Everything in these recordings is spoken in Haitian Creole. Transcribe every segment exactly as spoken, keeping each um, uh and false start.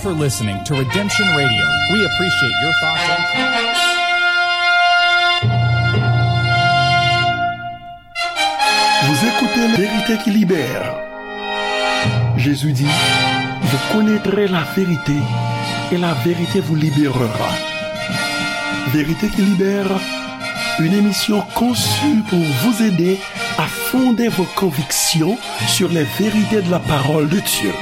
for listening to Redemption Radio. We appreciate your thoughts and comments. Vous écoutez La Vérité qui libère. Jésus dit, vous connaîtrez la vérité et la vérité vous libérera. Vérité qui libère, une émission conçue pour vous aider à fonder vos convictions sur les vérités de la parole de Dieu.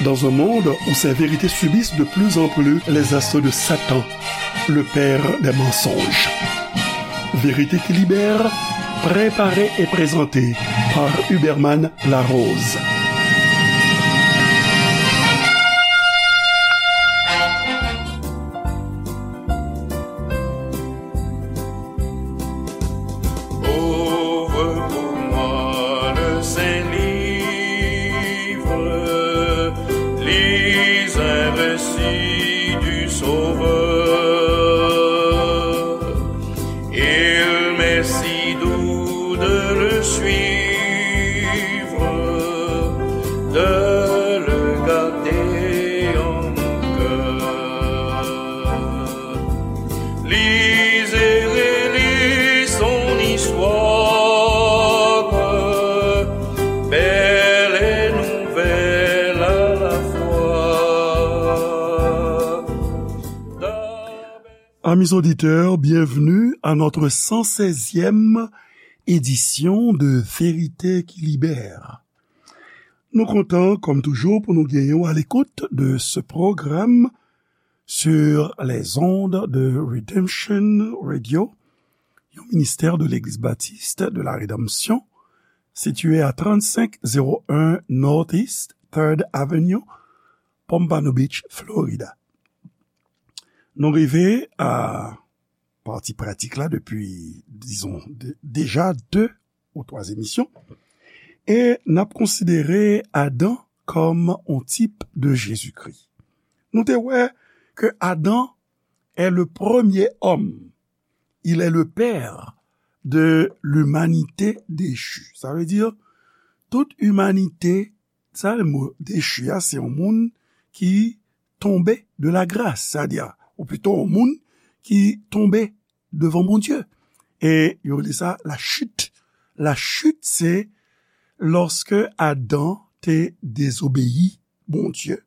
Dans un monde où ces vérités subissent de plus en plus les assauts de Satan, le père des mensonges. Vérité qui libère, préparée et présentée par Huberman Larose. Ouvre pour moi le Saint-Livre, lis un récit du Sauveur. Il m'est si doux de le suivre, de le garder en mon cœur. Lis et relis son histoire, belle et nouvelle à la fois. Amis auditeurs, bienvenue à notre cent seizième édition de Vérité qui libère. Nou kontan, kòm toujou, pou nou genyen w à l'écoute de ce programme sur les ondes de Redemption Radio, yon ministère de l'Église Baptiste de la Rédemption, situé à trente-cinq zéro un Northeast Third Avenue, Pompano Beach, Florida. Nou rive a pati pratik la depi, dizon, de, deja de ou twa emisyon. E n ap konsidere Adan kòm on tip de Jezikri. Nou te wè ke Adan est le premier homme. Il est le père de l'humanité déchue. Sa vle di, tout imanite, sa le mo dechi a, se yon moun ki tonbe de la grâce, sa di, ou pito yon moun ki tonbe devan Bondye. E yo rele sa la chute. La chute, se lòske Adan te dezobeyi Bondye.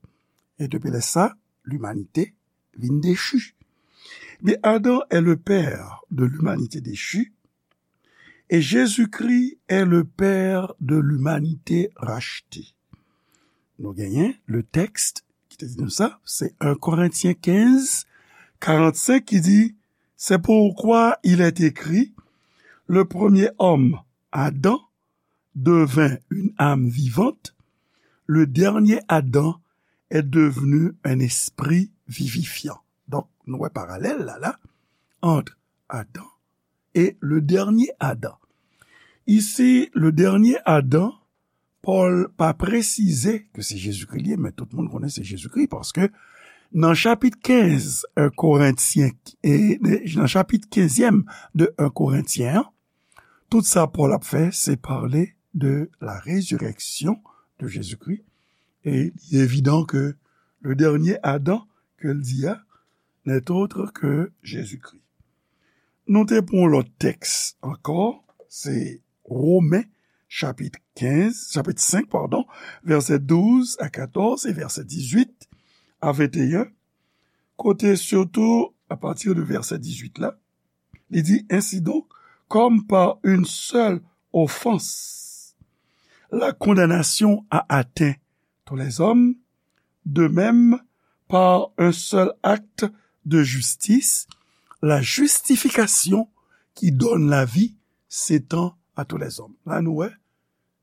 E depi lè sa, limanite vin dechi. Men Adan est le père de l'humanité déchue et Jésus-Christ est le père de l'humanité rachetée. Nou genyen le texte ki te di nou sa, se un Corinthiens quinze, quarante-cinq ki di, c'est pourquoi il est écrit, le premier homme, Adam, devint une âme vivante, le dernier Adam est devenu un esprit vivifiant. Donk, nou wè paralèl la, la, entre Adam et le dernier Adam. Ici, le dernier Adam, Pòl pa presize ke se Jezikri li ye, men tout moun konnen se Jezikri, paske nan chapit kenz un Korentyen, e, nan chapit kenzyèm de un Korentyen an, tout sa Pòl ap fè, se pale de la résurrection de Jésus-Christ, e li evidan ke le dernier Adam ke l di a, n'est autre que Jésus-Christ. Nou te pran yon lòt tèks ankò, se Women, chapit kenz, chapit senk, padon, vèsè douz a katòz e vèsè dizuit a venteyen, kote sitou, apati de vèsè dizuit la, li di, ainsi donc, comme par une seule offense, la condamnation a atteint tous les hommes, de même, par un seul acte de justice, la justification qui donne la vie s'étend à tous les hommes. La nou wè,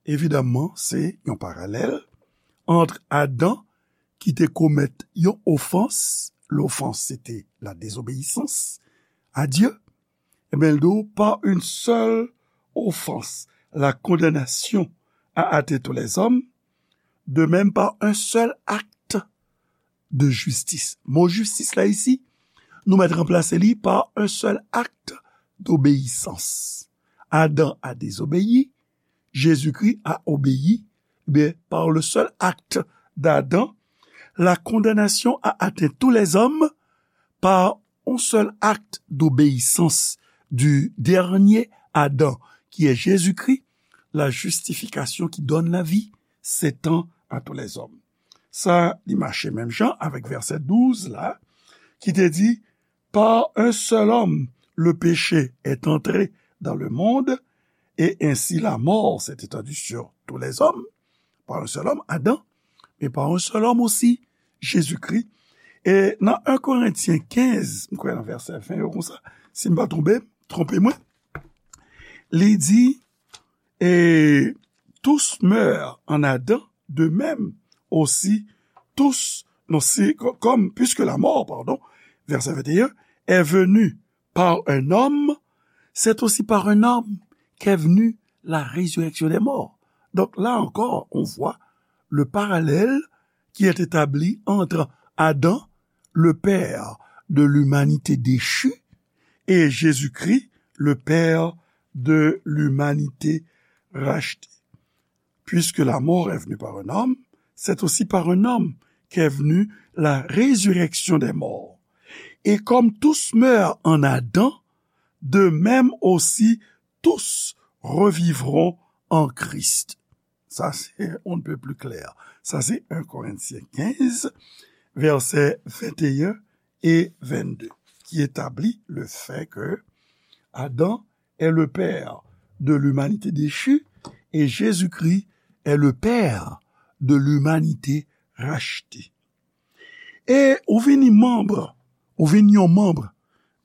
evidaman, se yon paralèl ant Adan ki te komèt yon ofans, lofans se te la désobéissance à Dieu, ebyen, l di w, par une seule offense, la condamnation a atteint tous les hommes, de même par un seul acte de justice. Mo jistis la isi, nou mèt ranplase li par un seul acte d'obéissance. Adam a désobéi, Jésus-Christ a obéi, ben, par le seul acte d'Adam, La condamnation a atteint tous les hommes par un seul acte d'obéissance du dernier Adam, qui est Jésus-Christ, la justification qui donne la vie s'étend à tous les hommes. Sa, li mache menm jan avèk vèsè douz la, ki te di, par un seul homme, le péché est entré dans le monde, et ainsi la mort s'est étendue sur tous les hommes, par un seul homme, Adam, mais par un seul homme aussi, Jésus-Christ. E nan en Korentyen kenz, m kwè nan vèsè ven yo konsa, si m pa twonpe, twonpe mwen, li di, et tous meurent en Adam, de même aussi tous, non, c'est co- comme, puisque la mort, pardon, verset vingt et un, est venue par un homme, c'est aussi par un homme qu'est venue la résurrection des morts. Donc là encore, on voit le parallèle qui est établi entre Adam, le père de l'humanité déchue, et Jésus-Christ, le père de l'humanité rachetée. Puisque la mort est venue par un homme, c'est aussi par un homme qu'est venue la résurrection des morts. Et comme tous meurent en Adam, de même aussi tous revivront en Christ. Sa se on ne peut plus clair. Sa se en Korentyen kenz, vèsè venteyen e vennde, ki etabli le fait que Adam est le père de l'humanité déchue et Jésus-Christ est le père de l'humanité rachetée. E ou vini manm, ou vin yon manm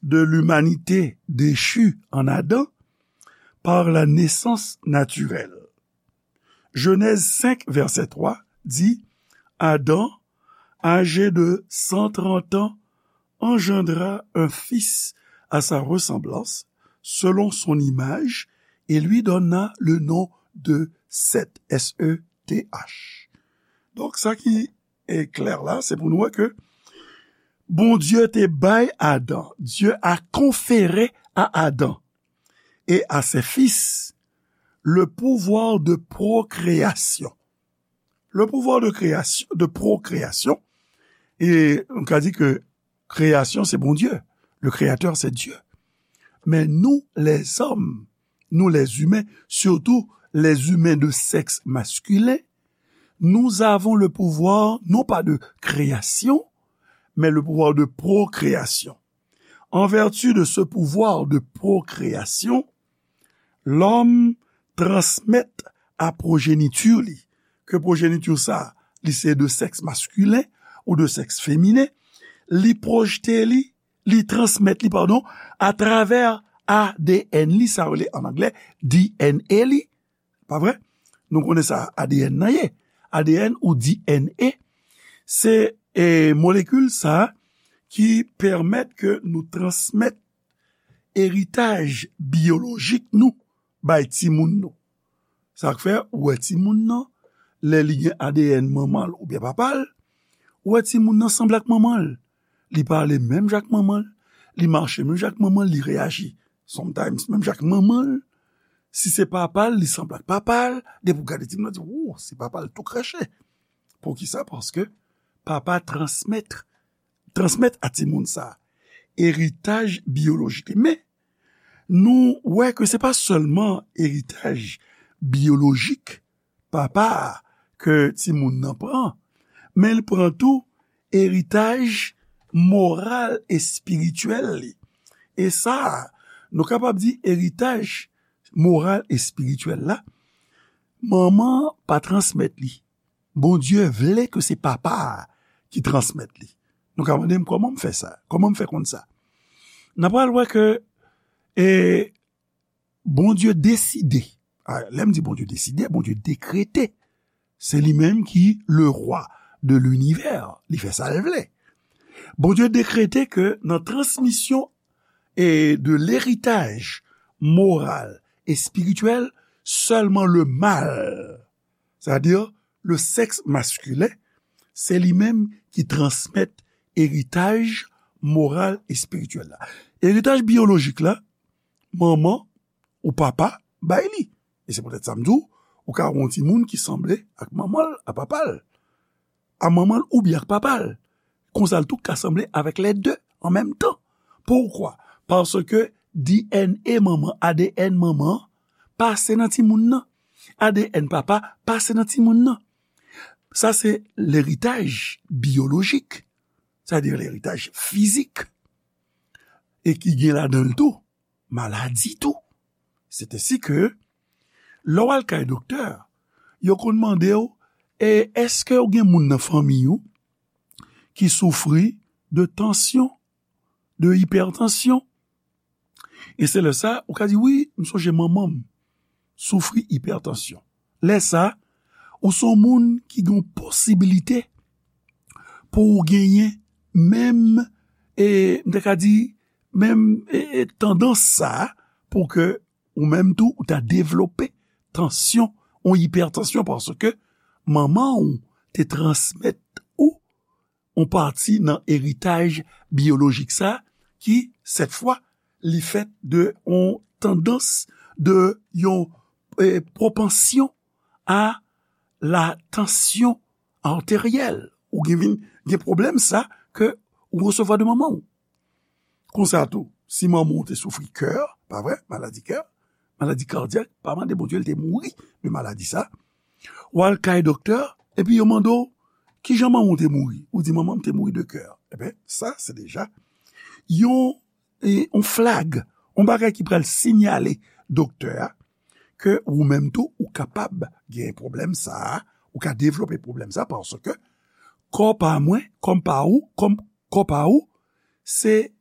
de l'humanité déchue en Adam par la naissance naturelle. Genèse cinq, verset trois dit, Adam, âgé de cent trente ans, engendra un fils à sa ressemblance, selon son image, et lui donna le nom de Seth, S E T H. Donk, sa ki e klè la, se pou nou wè ke Bondye te bay Adan, Dieu a conféré à Adam et à ses fils le pouvoir de procréation. Le pouvoir de création, de procréation, e nou ka di ke kreyasyon se Bondye, le créateur c'est Dieu. Men nou, les hommes, nous les humains, surtout les humains de sexe masculin, nous avons le pouvoir, non pas de création, mais le pouvoir de procréation. En vertu de ce pouvoir de procréation, l'homme transmet a progenitur li, ke progenitur sa, li se de sexe masculin ou de sexe féminin, li pwojte li, li transmet li, padon, atravè A D N li, sa yo rele an anglè D N A li, pa vre? Nou konnen sa A D N nan ye. A D N ou D N A, se, e, molekil sa ki pèmèt ke nou transmèt eritaj biyolojik nou bay timoun nou. Sa k fè, ou wè timoun nan, lè li gen A D N manman l oubyen papa l, ou wè timoun nan sanble ak manman l. Li pale menm jan ak manman l, li mache menm jan ak manman l, li reyaji sometimes menm jan ak manman l. Si se papa l, li sanble ak papa l, depi w gade timoun nan, di, "Wou, se papa l tou kreche." Poukisa? Paske papa transmèt, transmèt a timoun sa eritaj biyolojik li. Men, nou wè ke se pa sèlman eritaj biyolojik papa a ke timoun nan pran, men l pran tou eritaj moral, espirityèl li. E sa, nou kapab di eritaj moral, espirityèl la, manman an pa transmèt li. Bondye vle ke se papa a ki transmèt li. Nou ka mande m, "Kòman m fè sa? Kòman m fè konn sa?" N a pral wè ke, e, Bondye deside. A, lè m di Bondye deside, Bondye dekrete. Se li menm ki le roi de l'univers. Li fè sa l vle. Bondye dekrete ke nan transmisyon e de leritaj moral, espirityèl, sèlman le mal, sètadi le sexe masculin, se li menm ki transmèt eritaj moral, espirityèl la. Eritaj biyolojik la, manman ou papa bay li. E se poutèt sa m di w, ou ka wè yon timoun ki sanble ak manman l, ak papa l. a manman l oubyen ak papa l. Konsa l tou ka sanble avèk lè de an menm tan. Poukwa? Paske D N A manman, A D N manman, pase nan timoun nan. A D N papa pase nan timoun nan. Sa se leritaj biyolojik, sètadi leritaj fizik. E ki gen ladan l tou maladi tou. Sètadi ke lè w al kay doktè, yo konn mande w, e èske w gen moun nan fanmi w ki soufri de tansyon, de ipètansyon? E se lè sa, ou ka di, wi, m sonje manman m soufri ipètansyon. Lè sa, ou se yon moun ki gen posibilite pou w genyen menm, e, m te ka di, menm, e, e, tandans sa, pou ke ou menm tou, ou ta devlope tansyon, yon ipètansyon, paske manman w te transmèt ou yon pati nan eritaj biyolojik sa, ki, sèt fwa, li fèt de yon tandans, de yon, e, pwopansyon a la tansyon arteryèl. Ou gen vin gen pwoblèm sa ke ou resevwa de manman w. Konsa tou, si manman w te soufri kè, pa vre, maladi kè, maladi kadyak, pa mande Bondye l te mouri de maladi sa. W al kay doktè, epi yo mande w, kijan manman w te mouri? Ou di, manman m te mouri de kè. Ebyen, sa, se deja yon, e, yon flag, yon bagay ki pral sinyale doktè a ke ou menm tou, ou kapab gen pwoblèm sa a, ou ka devlope pwoblèm sa a, paske kò pa mwen, kòm pa ou, kòm kò pa ou, se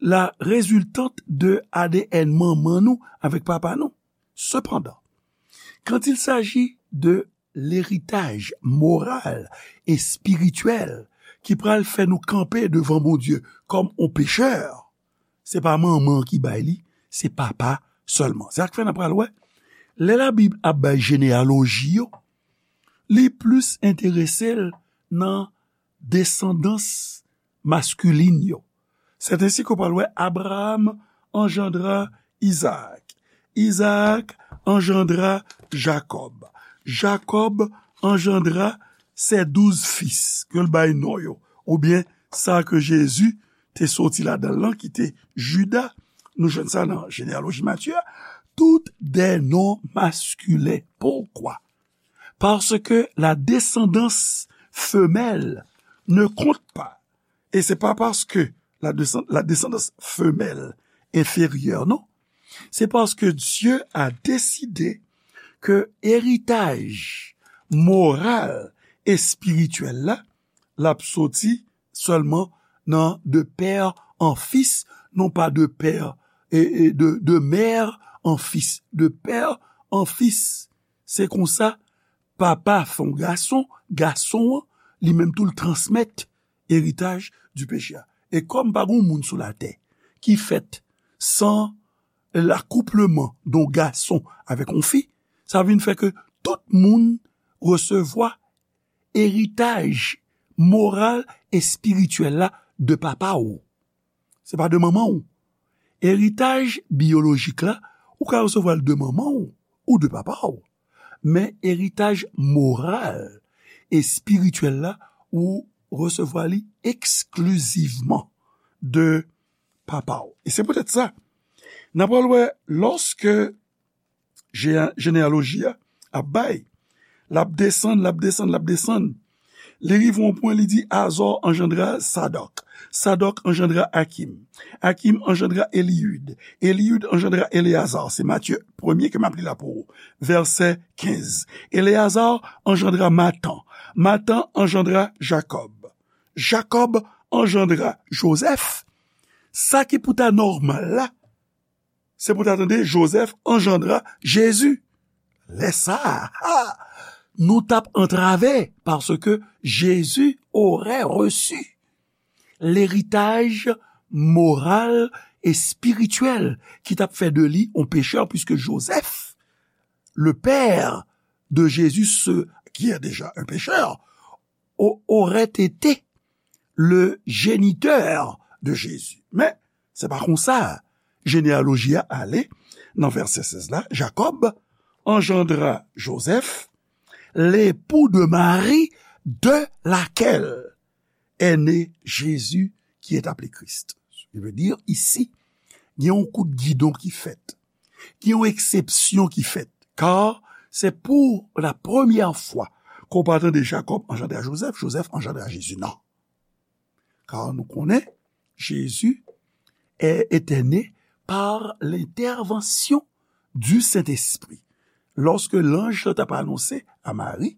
la résultante de A D N manman nou avèk papa nou. Sepandan, quand il s'agit de l'héritage moral et spirituel ki pral fè nou kanpe devan Bondye kòm yon pechè, se pa manman ki bay li, se papa sèlman. Se sa k fè n ap pral wè, lè Labib ap bay jeneyaloji yo, li plis enterese l nan desandans maskilin yo. Sètadi ke w pral wè Abraham anjandra Izaak. Izaak anjandra Jakòb. Jakòb anjandra ses douze fis, ke l bay non yo, oubyen sa ke Jezi te soti ladan l lan, ki te Jida. Nou jwenn sa nan jeneyaloji Matye a. Tout des noms masculins. Poukwa? Parce que la descendance femelle ne compte pas. Et c'est pas parce que la, descend- la descendance femelle est inférieure, non. C'est parce que Dieu a décidé que héritage moral et spirituel la, l ap soti sèlman nan de père en fils, non pas de père et, et de, de mère en fils, de père en fils. Se konsa, papa fè yon gason, gason an, li menm tou l transmèt eritaj di peche a. E kòm pa gen moun sou latè ki fèt san l'acouplement de yon gason avèk yon fi, sa vin fè ke tout moun resevwa eritaj moral e espirityèl la de papa w. Se pa de manman w. Eritaj biyolojik la, ou ka resevwa l de manman w ou de papa w. Men eritaj moral e espirityèl la, ou resevwa li eksklizivman de papa w. E se poutèt sa, n ap pral wè, lòske je- jeneyaloji a ap bay, l ap desann, l ap desann, l ap desann. Li rive yon pwen, li di, Azò anjandra Sadòk. Sadòk anjandra Akim. Akim anjandra Eliyud. Eliyud anjandra Eleyazar. Se Matye premye ke m ap li la pou ou. Vèsè kenz. Eleyazar anjandra Matan. Matan anjandra Jakòb. Jakòb anjandra Jozèf. Sa ki pou ta nòmal la, se pou ta tande Jozèf anjandra Jezi. Lè sa a, ha, nou t ap antrave, paske Jezi aurait reçu l'héritage moral et spirituel ki t ap fè de li yon pechè, puisque Joseph, le père de Jésus, ce qui est déjà un pécheur, au- aurait été le géniteur de Jésus. Men, se pa konsa jeneyaloji a ale. Nan vèsè sèz la, Jakòb anjandra Jozèf, l'époux de Marie, de laquelle est né Jésus qui est appelé Christ. Sa vle di, isi, gen yon kout gidon ki fèt. Gen yon eksepsyon ki fèt. Kar se pou la premyè fwa ke w pa tande Jakòb anjandre a Jozèf, Jozèf anjandre a Jezi. Non. Kar nou konnen, Jezi était né par l'intervention du Saint-Esprit. Lòske lanj lan t ap anonse a Mari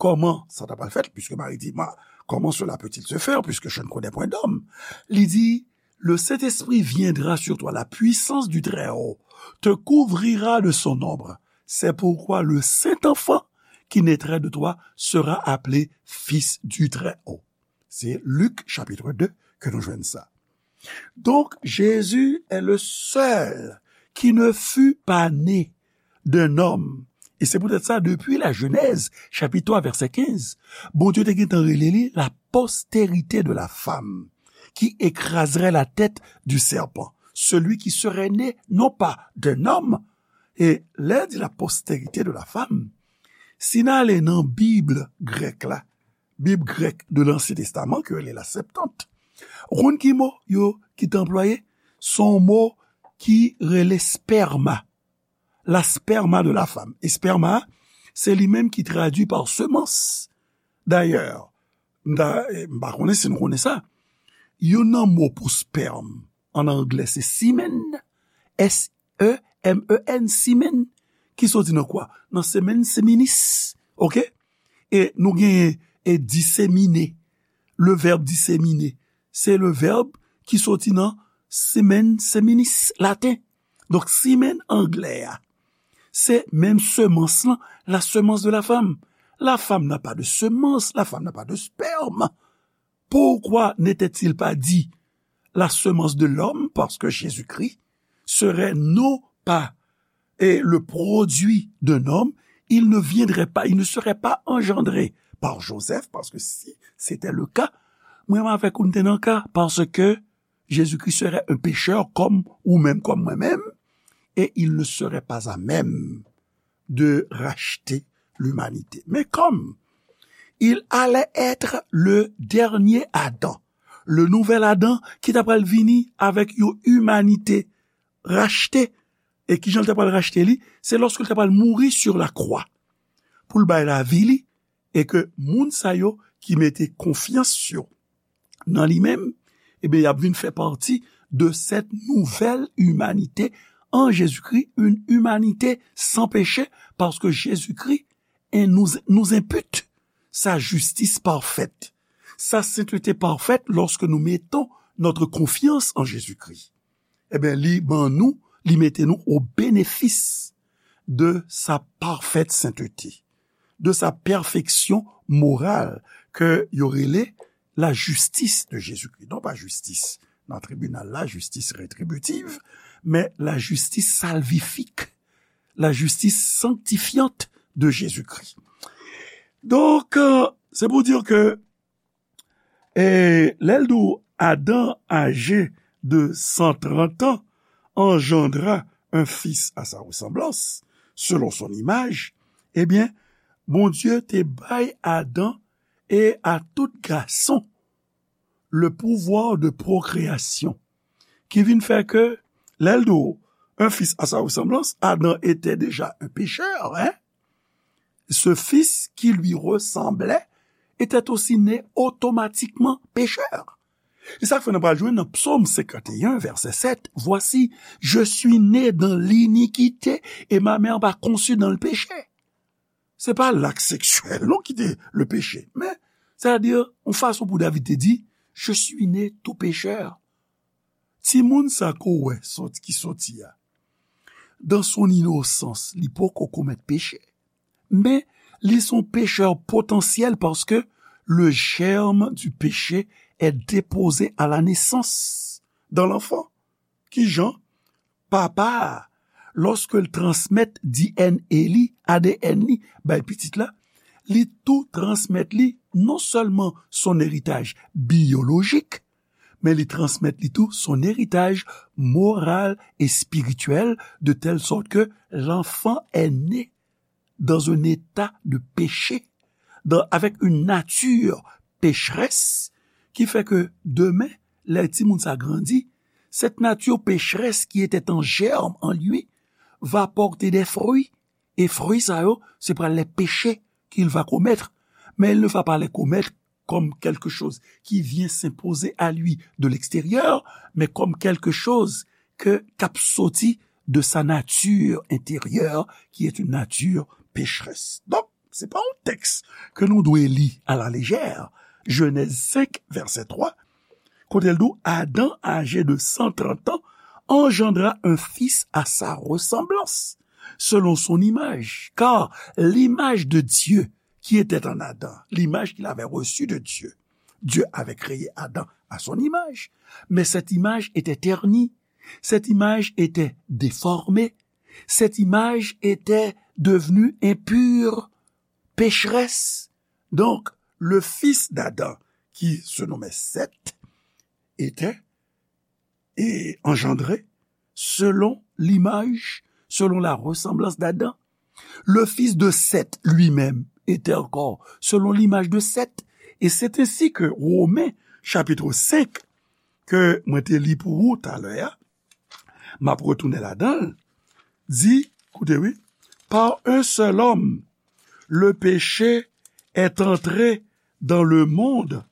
kòman sa t ap fèt, puisque Marie dit, moi, comment cela peut-il se faire, puisque je ne connais point d'homme? Li di, le Saint-Esprit viendra sur toi, la puissance du Très-Haut te couvrira de son ombre. C'est pourquoi le saint enfant qui naîtrait de toi sera appelé fils du Très-Haut. Se Lik chapit de ke nou jwenn sa. Donc, Jésus est le seul qui ne fut pas né d'un homme. Et c'est peut-être ça, depuis la Genèse, chapitre trois, verset quinze, Bondye te gentan rele li la postérité de la femme, qui écraserait la tête du serpent. Celui qui serait né, non pas d'un homme, e lè di la postérité de la femme, si n ale nan Bib grèk la, Bib grèk de l'Ancien Testament, ki rele la Septante, ou konn ki mo yo ki te anplwaye? Se yon mo ki rele sperma. La sperma de la femme. E sperma, se li menm ki tradui pa semans. Dayè, m ta, m pa konnen si nou konnen sa. Youn nan mo pou sperm an anglè se semen, S E M E N, semen, ki soti nan kwa? Nan semen, seminis. Oke? E nou genyen e disemine. Le vèb disemine, se le vèb ki soti nan semen, seminis, laten. Donk, semen anglè a, se menm semans lan, la semence de la femme. La femme n'a pas de semence, la femme n'a pas de sperme. Pourquoi n'était-il pas dit la semence de l'homme? Parce que Jésus-Christ serait non pas et le produit d'un homme, il ne viendrait pas, il ne serait pas engendré par Joseph, parce que si c'était le cas, mwen avèk ou n te nan ka, parce que Jésus-Christ serait un pécheur comme ou même, comme moi-même, et il ne serait pas à même de racheter l'humanité. Mais comme il allait être le dernier Adam, le nouvel Adam ki ta pral vini avèk yon imanite rachte, e kijan l ta pral rachte li? Se lòske l ta pral mouri sur la croix pou l bay lavi li, e ke moun sa yo ki mete konfyans yo nan li menm, ebyen, y ap vin fè pati de cette nouvelle humanité en Jésus-Christ, une humanité sans péché, parce que Jésus-Christ nous, nous impute sa justice parfaite, sa sainteté parfaite lorsque nous mettons notre confiance en Jésus-Christ. Ebyen, li ban nou, li mete nou au bénéfice de sa parfaite sainteté, de sa perfection morale ke yo rele la justice de Jésus-Christ. Non pa jistis nan tribinal la, jistis retribitiv, men la justice salvifique, la justice sanctifiante de Jésus-Christ. Donk, euh, se pou di ke, e, lè l di w, Adam, âgé de cent trente ans, engendra un fils à sa ressemblance, selon son image, ebyen, Bondye te bay Adan e a tout gason le pouvoir de procréation, ki vin fè ke, lè l di w, un fils à sa ressemblance, Adam était déjà un pécheur, hein? Ce fils qui lui ressemblait était aussi né automatiquement pécheur. E sa k fè nou pral jwenn nan Psaume cinquante et un, verset sept, voici, je suis né dans l'iniquité et ma mère m'a conçu dans le péché. Se pa lak seksyèl, non, ki te le péché. Men, sètadi, yon fason pou David te di, je suis né tout pécheur. Timoun sa ke w wè sòti, ki sòti a, dans son innocence, li poko komèt peche. Men, li se yon pechè potansyèl paske le germe du péché est déposé à la naissance dans l'enfant. Kijan? Papa a, lòske l transmèt D N A li, A D N li, bay pitit la, li tou transmèt li non sèlman son eritaj biyolojik, men li transmèt li tou son eritaj moral e espirityèl, de telle sorte que l'enfant est né dans un état de péché, dans, avec une nature pécheresse, qui fait que demain, lè timoun sa grandi, cette nature pécheresse qui était en germe en lui va porter des fruits. E fwi sa yo, se pral les péchés qu'il va commettre. Mais il ne va pas les commettre comme quelque chose qui vient s'imposer à lui de l'extérieur, mais comme quelque chose que, k ap soti de sa nature intérieure, qui est une nature pécheresse. Donk, se pa yon tèks ke nou dwe li à la légère. Genèse cinq, verset trois, kote l di w, Adam, âgé de cent trente ans, engendra un fils à sa ressemblance, selon son image. Car l'image de Dieu qui était en Adam, l'image qu'il avait reçue de Dieu. Dieu avait créé Adam à son image, mais cette image était ternie, cette image était déformée, cette image était devenue impure, pécheresse. Donc, le fils d'Adam, qui se nommait Seth, était et engendré selon l'image, selon la ressemblance d'Adam. Le fils de Seth lui-même était encore selon l'image de Seth. Et c'est ainsi que Romains chapitre cinq, ke mwen te li pou ou talè a, m ap retounen ladan l, di, koute wi, par un seul homme, le péché est entré dans le monde,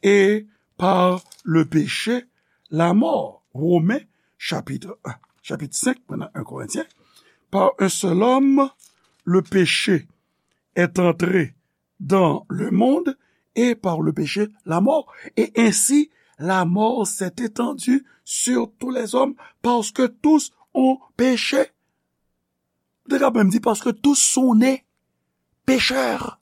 et par le péché, la mort. Romains chapitre un, chapitre cinq, maintenant un Corinthiens, par un seul homme, le péché est entré dans le monde, et par le péché, la mort. Et ainsi, la mort s'est étendue sur tous les hommes, parce que tous ont péché. Ou te ka menm di, parce que tous sont nés pécheurs.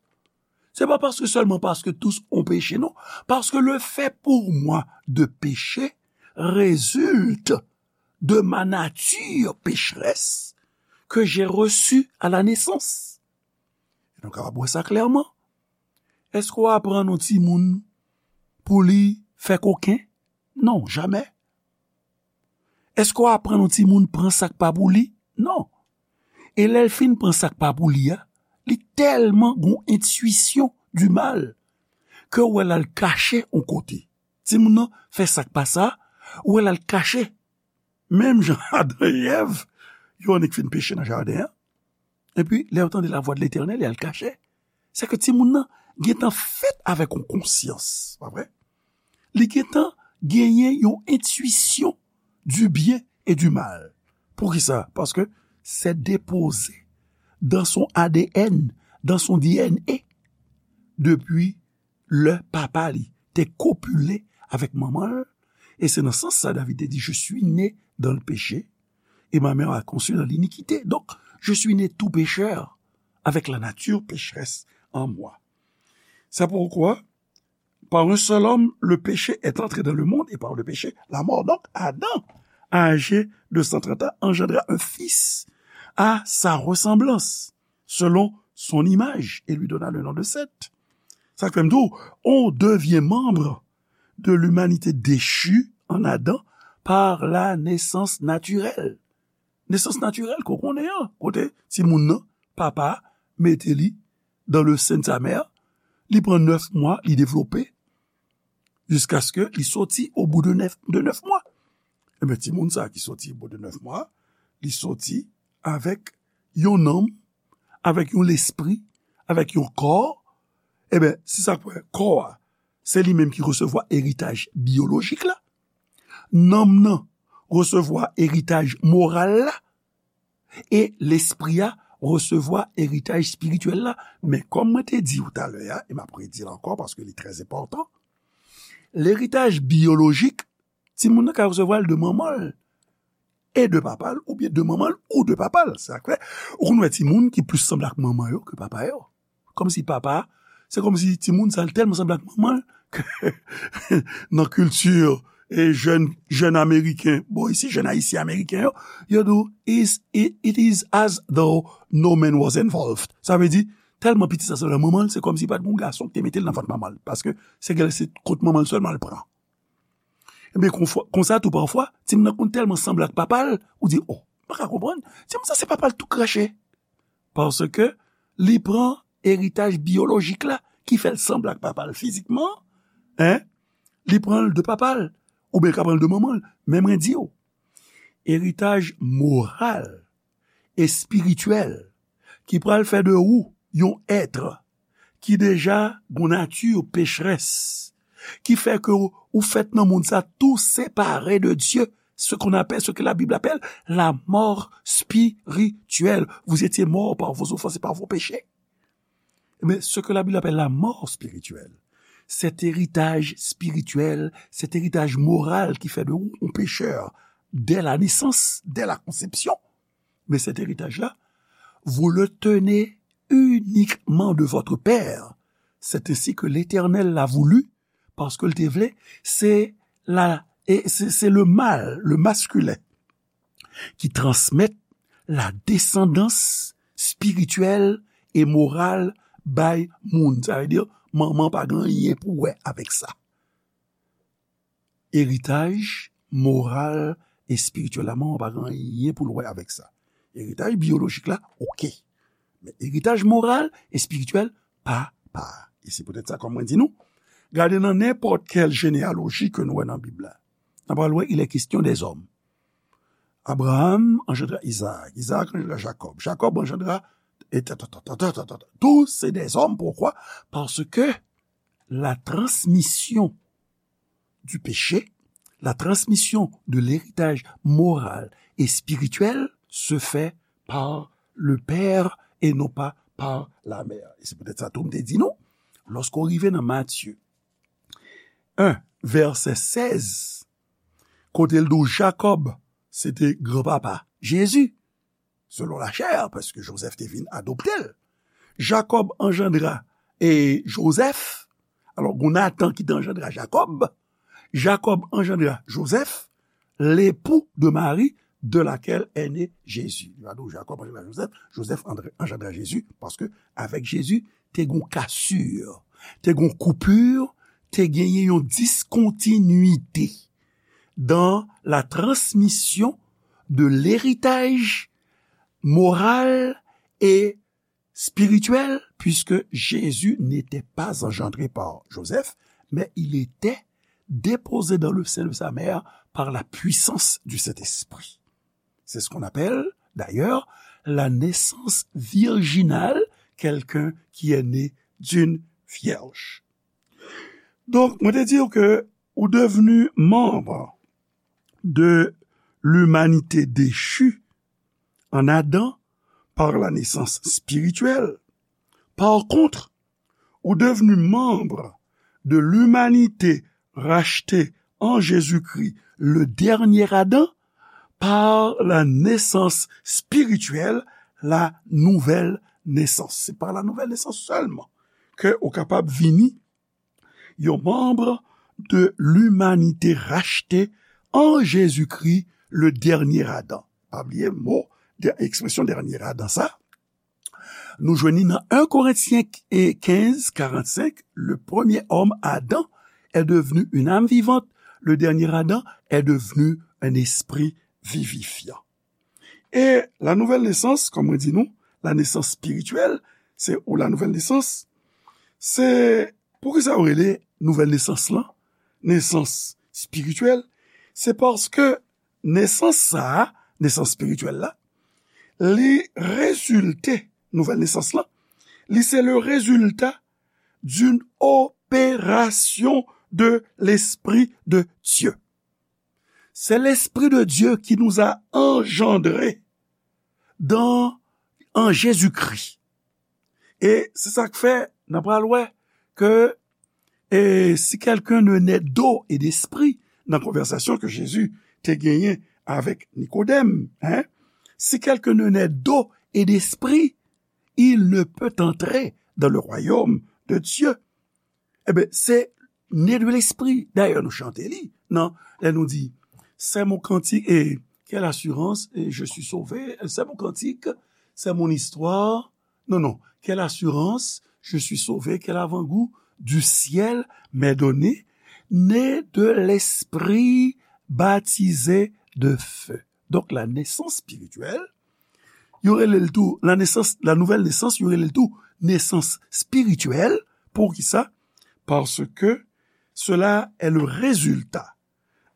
C'est pas parce que, seulement parce que tous ont péché, non. Parce que le fait pour moi de pécher résulte de ma nature pécheresse que j'ai reçue à la naissance. E nou kapab wè sa klèman. Èske w aprann yon timoun pou li fè koken? Non, jamè. Èske w aprann yon timoun pran sa k pa pou li? Non. E lè l fin pran sa k pa pou li a, li tèlman gon entwisyon di mal ke w wè l al kache yon kote. Timoun nan fè sa k pa sa, w wè l al kache. Menm jan Adan e Èv, yo annik fin peche nan jaden an. Epi, lè yo tande lavwa de Letènèl, y al kache. Se ke timoun nan gentan fèt avèk yon konsyans, pa vre? Li gentan genyen yon entwisyon du bien et du mal. Poukisa? Paske c'est déposé dans son A D N, dans son D N A, depi lè papa li te kopile avèk manman l. E se nan sans sa David te di, Je suis né dans le péché, et ma mère a conçu dans l'iniquité. Donc, je suis né tout pécheur, avec la nature pécheresse en moi. C'est pourquoi, par un seul homme, le péché est entré dans le monde, et par le péché, la mort. Donc, Adam, âgé de cent trente ans, engendra un fils à sa ressemblance, selon son image, et lui donna le nom de Seth. Sa k fè m di w, on devient membre de l'humanité déchue en Adam par la naissance naturelle. Nesans natirèl ke w konnen an, kote timoun nan, papa mete li dans le sein de sa mère, li pran nèf mwa, li devlope, jiskaske li soti au bout de nèf, de nèf mwa. Ebyen, timoun sa ki soti au bout de nèf mwa, li soti avèk yon nanm, avèk yon lespri, avèk yon kò. Ebyen, se sa k fè kò a, se li menm ki resevwa eritaj byolojik la. Nanm nan resevwa eritaj moral la. E lespri a resevwa eritaj espirityèl la. Men kòm mwen te di w talè a, e m ap redi l ankò paske li trè enpòtan, leritaj byolojik, timoun nan ka resevwa l de manman l e de papa l, oubyen de manman l ou de papa l. Sa k fè, ou konn wè timoun ki plis sanble ak manman yo ke papa yo. Kòmsi papa, se kòmsi timoun sa l tèlman sanble ak manman l ke nan kilti e jèn, jèn ameriken, bon, isi, jèn ayisyen ameriken yo, yo di w, "Is, it, it is as though no man was involved." Sa vle di, tèlman pitit sa sanble ak manman l, se kòmsi pa t gen yon gason ki te mete l nan vant manman l. Paske se gèl, se kot manman l sèlman l pran. Ebyen, konfwa, konsa tou pafwa, timoun nan konn tèlman sanble ak papa l, ou di, "Oh, m pa ka konprann. Timoun sa se papa l tou krache." Paske li pran eritaj byolojik la ki fè l sanble ak papa l fizikman, en, li pran l de papa l, oubyen l ka pran l de manman l. Men mwen di w, eritaj moral, espirityèl ki pral fè de ou yon èt ki deja gon nati pecherès, ki fè ke ou, ou fèt nan mond sa tou separe de Dye, ce qu'on appelle, ce que la Bible appelle la mort spirituelle. Vous étiez morts par vos offenses et par vos péchés. Mais ce que la Bible appelle la mort spirituelle, cet héritage spirituel, cet héritage moral qui fait de vous un pécheur dès la naissance, dès la conception, mais cet héritage-là, vous le tenez uniquement de votre Père. C'est ainsi que l'Éternel l'a voulu, paske l te vle, se la, e se, se le mal, le masculin, ki transmèt la descendance spirituelle et morale bay moun. Sa vle di, manman pa gen anyen pou wè avèk sa. Eritaj moral, espirityèl la, manman pa gen anyen pou l wè avèk sa. Eritaj byolojik la, oke. Men eritaj moral, espirityèl, papa. E se poutèt sa, kòm mwen di nou, gade nan nenpòt kèl jeneyaloji ke nou wè nan Bib la. N ap pral wè, il est question des hommes. Abraham engendra Isaac, Isaac engendra Jacob, Jacob engendra, et ta, ta, ta, tout se des hommes. Pourquoi? Parce que la transmission du péché, la transmission de l'héritage moral et spirituel se fait par le père et non pas par la mère. E se poutèt sa tou m te di nou, lòske w rive nan Matye en, vèsè sèz, kote l di w Jakòb se te granpapa Jezi, selon la chair, paske Jozèf te vin adopte l. Jacob engendra, e, Joseph. Alors, gon Nathan ki te engendra Jacob. Jacob engendra Joseph, l'époux de Marie, de laquelle est né Jésus. Li pa di w Jacob engendra Joseph, Joseph andre-, engendra Jésus, paske avèk Jezi, te gon cassure, te gon coupure, te genyen yon discontinuité dans la transmission de l'héritage moral et spirituel, puisque Jésus n'était pas engendré par Joseph, mais il était déposé dans le sein de sa mère par la puissance du Saint-Esprit. C'est ce qu'on appelle, d'ailleurs, la naissance virginale, quelqu'un qui est né d'une vierge. Donk, mwen te di w ke ou devni manm de l'humanité déchue en Adam par la naissance spirituelle. Par contre, ou devni manm de l'humanité rachetée en Jésus-Christ, le dernier Adam, par la naissance spirituelle, la nouvelle naissance. Se pa la nouvelle naissance sèlman ke ou kapab vini yon manm de l'humanité rachetée en Jésus-Christ, le dernier Adam. Pa bliye mo, de, ekspresyon dènye Adan sa. Nou jwenn li nan en Corinthiens quinze, quarante-cinq, le premier homme, Adam, est devenu une âme vivante, le dernier Adam est devenu un esprit vivifiant. E la nouvèl nesans, kòm mwen di nou, la nesans espirityèl, se, ou la nouvèl nesans, se, poukisa yo rele nouvèl nesans lan nesans espirityèl? Se paske nesans sa a, nesans espirityèl la, li rezilte, nouvèl nesans lan, li se le résultat d'une opération de l'Esprit de Dieu. C'est l'Esprit de Dieu qui nous a engendrés dans, en Jésus-Christ. E se sa k fè, n a pral wè ke, e, si quelqu'un ne naît d'eau et d'esprit, nan konvèsasyon ke Jezi te genyen avèk Nikodèm, en, si quelqu'un ne naît d'eau et d'esprit, il ne peut entrer dans le royaume de Dieu. Eben, se né de l'esprit. Dayè, nou chante li, non? Lè nou di, c'est mon cantique, et quelle assurance, et je suis sauvé, c'est mon cantique, c'est mon histoire. Non, non, quelle assurance, je suis sauvé, quel avant-goût du ciel m'est donné, né de l'esprit, baptisé de feu. Donk, la nesans espirityèl, yo rele l tou, la nesans, la nouvèl nesans, yo rele l tou nesans spirityèl. Poukisa? Parce que cela est le résultat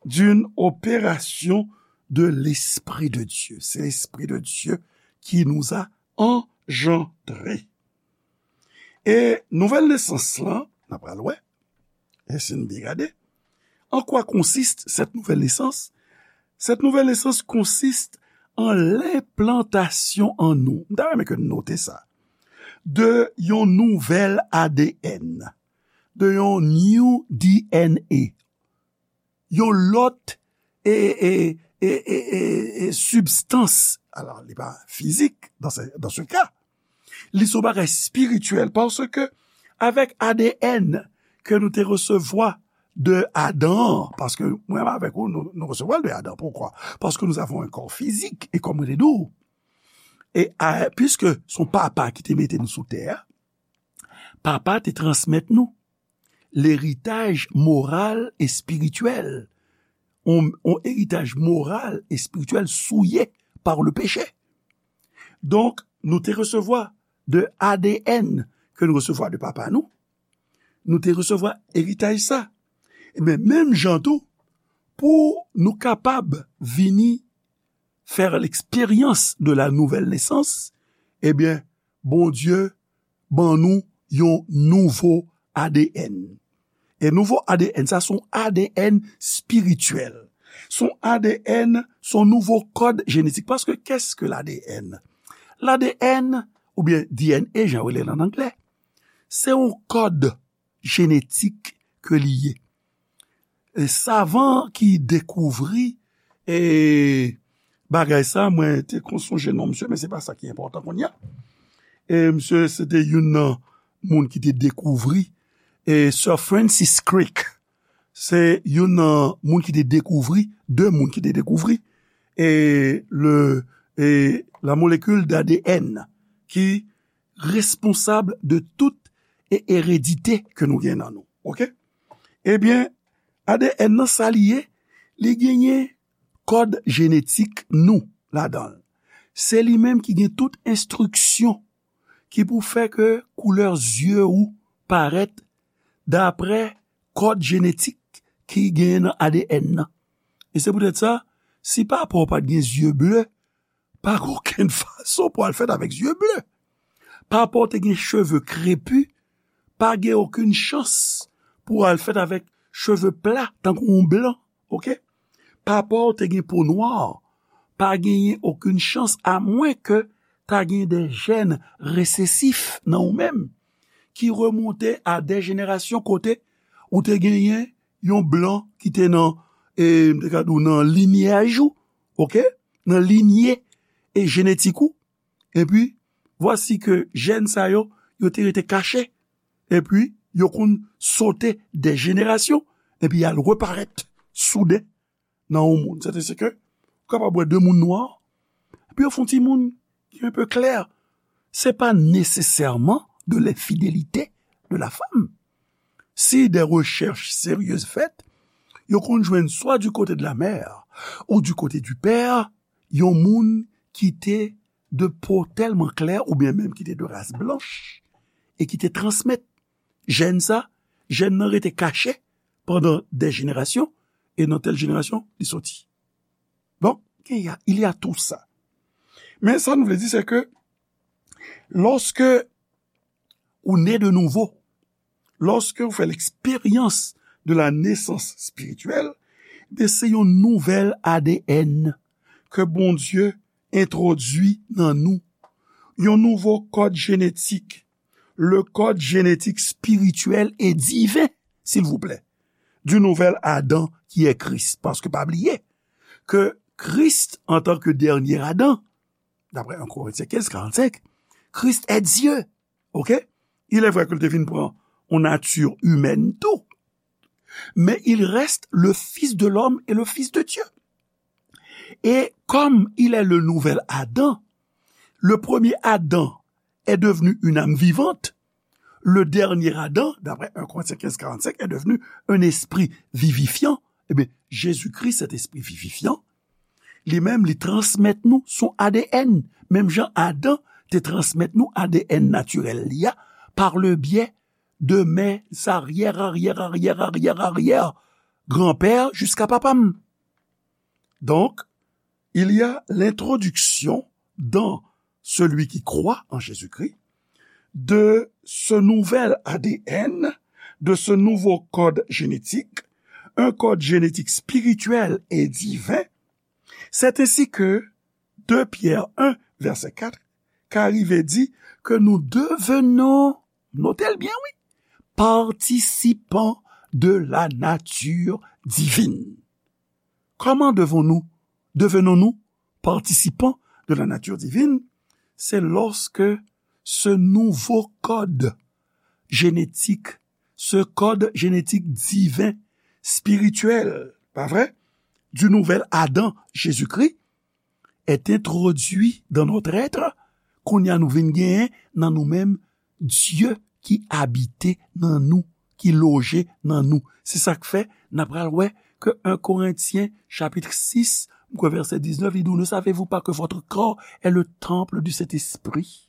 d'une opération de l'Esprit de Dieu. C'est l'Esprit de Dieu qui nous a engendrés. E nouvèl nesans lan, n ap pral wè, e si n byen gade, en quoi consiste cette nouvelle naissance? Cette nouvelle naissance consiste en l'implantation en nous. M ta renmen ke n note sa. De yon nouvèl A D N. De yon new D N A. Yon lòt e, e, e, e, e, e sibstans. Alò, li pa fizik dans ce, dans ce cas. Li se yon bagay spirityèl, paske avèk A D N ke nou te resevwa de Adan, paske mwen avèk ou, nou, nou resevwa l de Adan. Poukwa? Parce que nous avons un corps physique, e kòm mwen te di w, e a, puisque se yon papa ki te mete nou sou tè a, papa te transmèt nou leritaj moral e espirityèl, yon, yon eritaj moral e espirityèl souillé par le péché. Donk, nou te resevwa de A D N ke nou resevwa de papa nou, nou te resevwa eritaj sa. Men menm jan tou, pou nou kapab vini faire l'expérience de la nouvelle naissance, ebyen, Bondye ban nou yon nouvo A D N. E nouvo A D N sa, se yon A D N espirityèl. Se yon A D N, se yon nouvo kòd jenetik. Paske qu'est-ce que l'A D N? L'A D N, oubyen D N A, jan yo rele l an anglè, se yon kòd jenetik ke li ye. E savan ki dekouvri, e, bagay sa, mwen te konn sonje non misye, men se pa sa ki enpòtan kounye a. E misye, se te youn nan moun ki te dekouvri, e Sir Francis Crick, se youn nan moun ki te dekouvri, de moun ki te dekouvri, e le, e la molekil d'A D N ki responsab de tout e eredite ke nou gen nan nou. Oke? Ebyen, A D N nan sa li ye, li genyen kòd jenetik nou ladan l. Se li menm ki gen tout enstriksyon ki pou fè ke koulè zye ou parèt daprè kòd jenetik ki genyen nan A D N nan. E se poutèt sa, si papa w pa t gen zye ble, pa gen okenn fason pou al fèt avèk zye ble. Papa w te gen cheve krepi, pa gen okenn chans pou al fèt avèk cheve pla tankou yon blan, oke? Papa w te gen po nwa, pa genyen okenn chans, amwen ke ta gen de jèn resesif nan ou menm, ki remonte a de jenerasyon kote ou te genyen yon blan ki te nan, e, m te ka di w nan linyaj ou, oke? Nan linye e jenetik ou. Epi, vwasi ke jèn sa yo, yo te rete kache. Epi, yo konn sote de jenerasyon. Epi, y al reparèt souden nan yon moun. Sètadi ke ou kapab wè de moun nwa, epi yo fè yon timoun ki un peu clair. C'est pas nécessairement de l'infidélité de la femme. Si des recherches sérieuses faites, yo konn jwenn swa du côté de la mère ou du côté du père, yon moun ki te de po tèlman klè oubyen menm ki te de ras blanch e ki te transmèt jèn sa, jèn nan rete kache pandan de jenerasyon, e nan tèl jenerasyon, li soti. Bon, il y a, il y a tout ça. Men sa nou vle di, se ke lòske ou ne de nouvo, lòske ou fè l'expérience de la naissance spirituelle, ben se yon nouvèl A D N ke Bondye entwodui nan nou. Yon nouvo kòd jenetik, le code génétique spirituel et divin, s'il vous plaît, du nouvel Adam qui est Christ. Paske pa bliye ke Kris, antanke dènye Adan, d'après un Corinthiens quinze, quarante-cinq, Christ est Dieu. Ok? Il est vrai ke l te vin pran yon nati imèn tou, mais il reste le Fils de l'homme et le Fils de Dieu. Et comme il est le nouvel Adam, le premier Adam est devenu une âme vivante, le dernier Adam, d'après un Corinthiens quinze, quarante-cinq, est devenu un esprit vivifiant. Eh bien, Jésus-Christ, cet esprit vivifiant, li menm, li transmèt nou son A D N. Menm jan Adan te transmèt nou A D N natirèl li a par le biais de mes arrière, arrière, arrière, arrière, arrière grand-père jusqu'à papa m. Donc, il y a l'introduction dans celui qui croit en Jésus-Christ de ce nouvel A D N, de ce nouveau code génétique, un code génétique spirituel et divin. C'est ainsi que deux Pierre un, verset quatre, ka rive di que nous devenons, notez bien, oui, participants de la nature divine. Comment devons-nous, devenons-nous participants de la nature divine? C'est lorsque ce nouveau code génétique, ce code génétique divin, spirituel, pas vrai, du nouvel Adam, Jésus-Christ, est introduit dans notre être, kounye a nou vin genyen nan nou menm Dye ki abite nan nou, ki loje nan nou. Se sa k fè n ap pral wè ke un Korentyen chapit sis, m kwè vèsè diznèf, li di, ne savez-vous pas que votre corps est le temple du Saint-Esprit?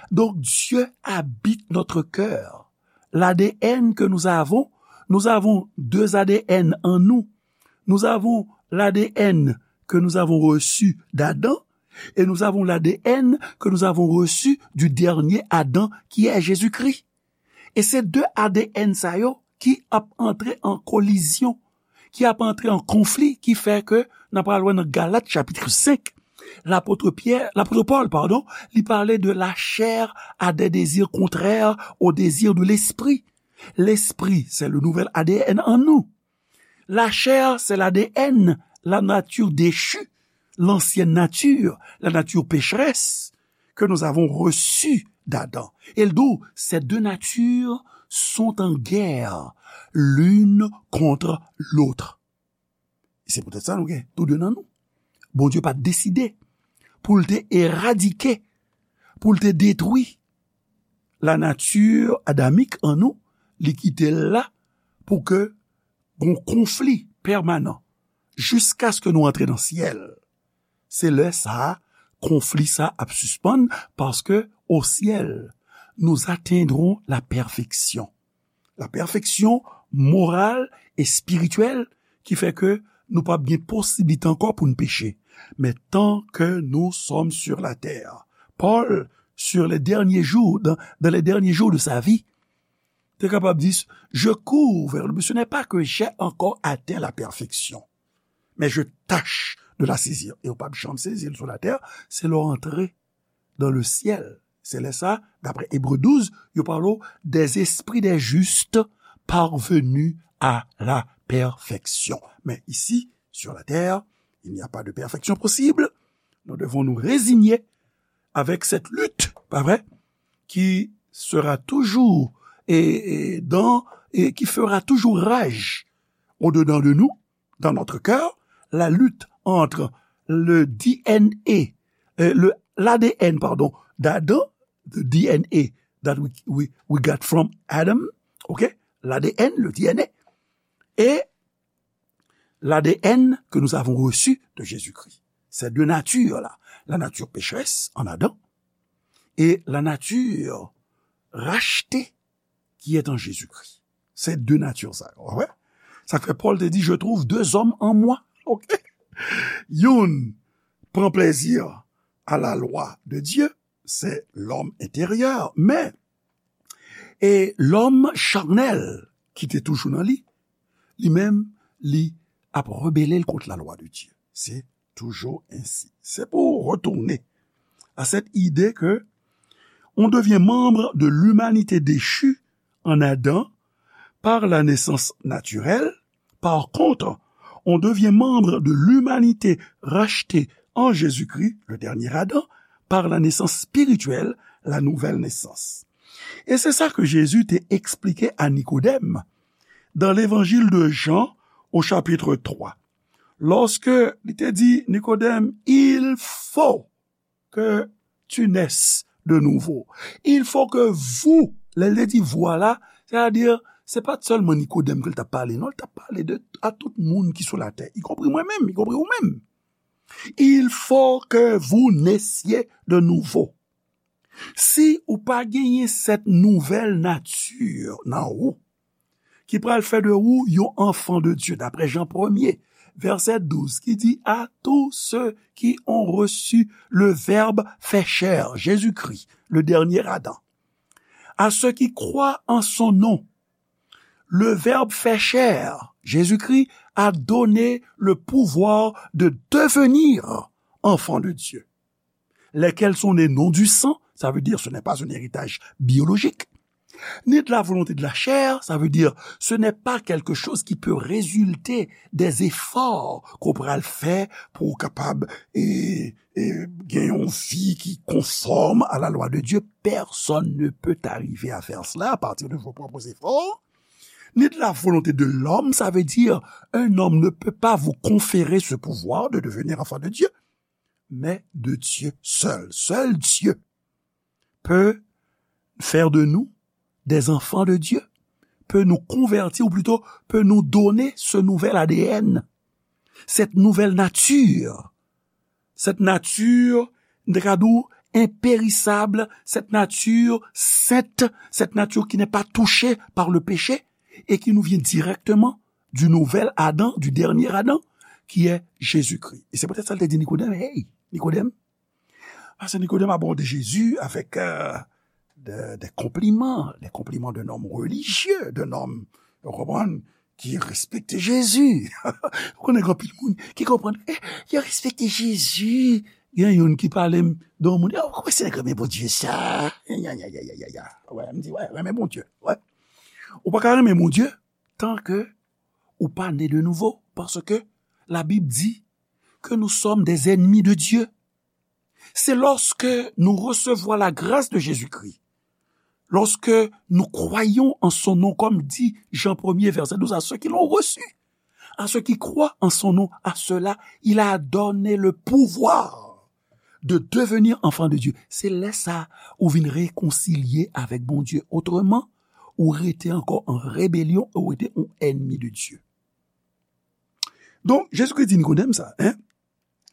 Donc Dieu habite notre cœur. L'A D N que nous avons, nous avons deux A D N en nous. Nous avons l'A D N que nous avons reçu d'Adam et nous avons l'A D N que nous avons reçu du dernier Adam qui est Jésus-Christ. E se de A D N sa yo ki ap antre an kolizyon, ki ap antre an konfli, ki fè ke n ap pral wè nan Galat chapit senk, lapot Pyè, lapot Pòl, padon, li pale de la chair a des désirs contraires aux désirs de l'esprit. L'esprit, c'est le nouvel A D N en nous. La chair, c'est l'A D N, la nature déchue, l'ancienne nature, la nature pécheresse que nous avons reçue d'Adam. E l di w, ces deux natures sont en guerre l'une contre l'autre. Se poutèt sa nou gen tou de nan nou. Bondye pa t deside pou l te eradike, pou l te detwi la nature adamique en nous, li kite l la pou ke gon konfli pèmanan jiskaske nou antre nan syèl. Se lè sa a, konfli sa a ap sispann, paske au ciel, nous atteindrons la perfection. La perfection morale et spirituelle ki fè ke nou p ap gen posiblite ankò pou n peche. Men tant que nous sommes sur la terre, Paul, sur les derniers jours, dans, dans les derniers jours de sa vie, te kapab di, je cours vers le but. Ce n'est pas que j'ai encore atteint la perfection, mais je tâche de la saisir. E w p ap janm sezi l sou latè, se lè w antre dans le ciel. Se lè sa, d'après Hébreux douze, yo pale w des esprits des justes parvenus à la perfection. Mais ici, sur la terre, il n'y a pas de perfection possible. Nous devons nous résigner avec cette lutte, pas vrai, qui sera toujours et, et dans, et qui fera toujours rage au-dedans de nous, dans notre cœur, la lutte entre le D N A, euh, le, l'A D N, pardon, d'Adam, the D N A that we, we, we got from Adam, ok? L'A D N, le D N A, et l'A D N que nous avons reçu de Jésus-Christ. Ces deux natures-là, la nature pécheresse en Adam et la nature rachetée qui est en Jésus-Christ. Se de nati sa yo, w wè? Sa k fè Pòl te di, je trouve deux hommes en moi. Ok? Youn pran plezi à la loi de Dieu, c'est l'homme intérieur. Men, e lòm chanèl ki te toujou nan li, li menm, li ap rebele l kont la lwa de Dye. Se toujours ainsi. C'est pour retourner à cette idée que on devient membre de l'humanité déchue en Adam par la naissance naturelle. Par contre, on devient membre de l'humanité rachetée en Jésus-Christ, le dernier Adam, par la naissance spirituelle, la nouvelle naissance. E se sa ke Jezi te eksplike a Nikodèm dans l'évangile de Jean au chapitre trois. Lorsque li te di Nikodèm, il faut que tu naisses de nouveau. Il faut que vous, lè l te di vous la, c'est-à-dire, se pa t sèlman Nikodèm ke l t ap pale, non, l t ap pale de, a tout moun ki sou latè, y compris mwen menm, y compris ou menm. Il faut que vous naissiez de nouveau. Si ou pa genyen cette nouvelle nature nan ou, ki pral fè de ou yon enfant de Dieu, d'après Jean premier, verset douze, qui dit, à tous ceux qui ont reçu le Verbe fait chair, Jésus-Christ, le dernier Adam, à ceux qui croient en son nom, le Verbe fait chair, Jésus-Christ, a donné le pouvoir de devenir enfants de Dieu, lesquels sont nés non du sang, ça veut dire ce n'est pas un héritage biologique, ni de la volonté de la chair, ça veut dire ce n'est pas quelque chose qui peut résulter des efforts qu'on pral fè pou w kapab e, e, gen yon vi ki konfòm à la loi de Dieu. Personne ne peut arriver à faire cela à partir de vos propres efforts. Ni de la volonté de l'homme, ça veut dire un homme ne peut pas vous conférer ce pouvoir de devenir enfant de Dieu, mais de Dieu seul. Seul Dieu peut faire de nous des enfants de Dieu, peut nous convertir, ou plutôt peut nous donner ce nouvel A D N, cette nouvelle nature, cette nature, nou ta ka di w, impérissable, cette nature sainte, cette nature qui n'est pas touchée par le péché et qui nous vient directement du nouvel Adam, du dernier Adam, qui est Jésus-Christ. Et c'est peut-être ça qu'il te dit Nicodème, hey, Nicodème, Paske Nikodèm abòde Jezi avèk euh, de, de konpliman, de konpliman d'un homme religieux, d'un homme, ou konprann, ki respekte Jezi. Ou konnen gen anpil moun ki konprann, eh, yo respekte Jezi. Gen youn ki pale m de yon moun, oh, kòman se nèg renmen Bondye sa? Ya, ya, ya, ya, ya, ya. Wè, m di, wè, renmen Bondye. Wè. Ou pa ka renmen Bondye tan ke ou pa ne de nouvo, paske la Bib di que nous sommes des ennemis de Dieu. C'est lorsque nous recevons la grâce de Jésus-Christ, lorsque nous croyons en son nom, comme dit Jean premier, verset douze, à ceux qui l'ont reçu, à ceux qui croient en son nom, à ceux-là, il a donné le pouvoir de devenir enfant de Dieu. Se lè sa ou vin rekonsilye avèk Bondye. Otreman, ou rete ankò an rebelyon, ou rete yon ènmi de Dye. Donk, Jezikri di Nikodèm sa, hein?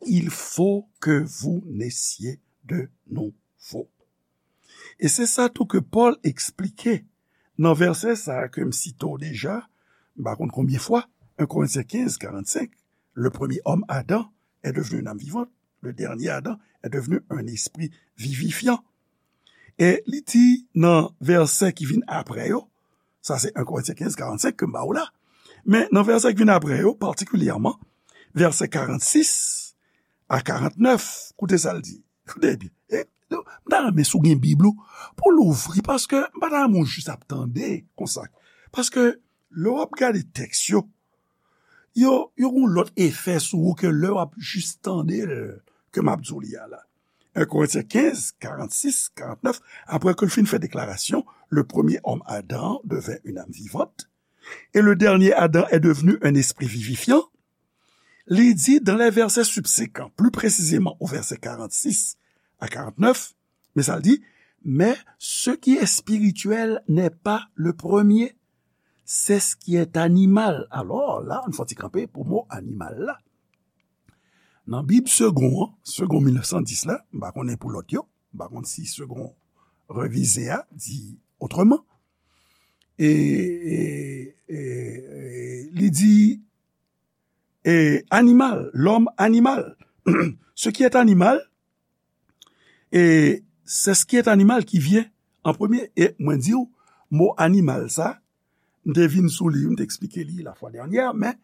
Il faut que vous naissiez de nouveau. E se sa tou ke Pòl eksplike nan vèsè sa a ke m site w deja, m pa konn konbyen fwa, un Corinthiens quinze, quarante-cinq, le premier homme, Adam, est devenu une âme vivante, le dernier Adam est devenu un esprit vivifiant. E li di nan vèsè ki vin apre yo, sa se un Korentyen kenz, karannsenk ke m ba w la. Men nan vèsè ki vin apre yo, patikilyèman, vèsè karannsis a karantnèf, koute sa l di. Koute byen. E, m ta renmen si w gen Bib ou, pou w louvri, paske m pa ta renmen w jis ap tande konsa. Paske lè w ap gade tèks yo, yo, yo gen yon lòt efè sou ou ke lè w ap jis tande l ke m ap di w li a la. Un Corinthiens quinze, quarante-six, quarante-neuf, après que le fin fait déclaration, le premier homme Adam devint une âme vivante, et le dernier Adam est devenu un esprit vivifiant, li di dans les versets subséquents, plus précisément au verset quarante-six à quarante-neuf, men sa l di, mais ce qui est spirituel n'est pas le premier, c'est ce qui est animal. Alors, la, nou fè yon ti kanpe pou mo animal la. Nan Bib Segond an, Segond mil nèf san dis la, m pa konnen pou lòt yo, m pa konn si Segond revize a di otreman. E, e, e, e, li di, e, animal, l'homme animal. Ce qui est animal, e, c'est ce qui est animal qui vient en premier. E mwen di w, mo animal sa, m te vin sou li, m te eksplike li la fwa dènyè, men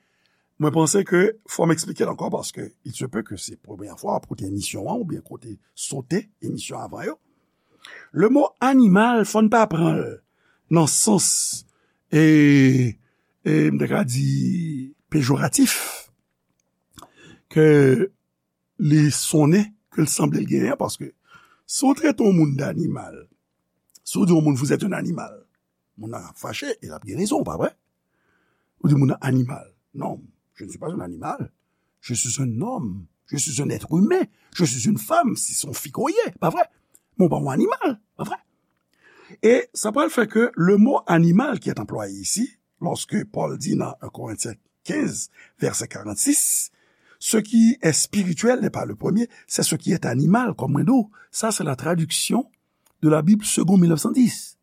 mwen panse ke fò m eksplike l ankò paske il se peut que se premyè fwa w ap koute emisyon an oubyen kote sote emisyon avan yo. Le mo animal, fò n pa pran l nan sans, e, e, m te ka di pejoratif, ke li sonnen, ke l sanble l genyen an, paske si w trete yon moun d'animal, si w di yon moun, vous êtes un animal, moun nan ap fache, e l ap gen rezon, pa vre? Ou di moun nan animal. Non, je ne suis pas un animal. Je suis un homme. Je suis un être humain. Je suis une femme, si se yon fi ke w ye, pa vre? Men w pa yon animal, pa vre? E sa pral fè ke le mot animal qui est employé ici, lorsque Paul dit dans un Corinthiens quinze, verset quarante-six, ce qui est spirituel n'est pas le premier, c'est ce qui est animal, kòm mwen di w. Sa se la tradiksyon de la Bible seconde mil nèf san dis.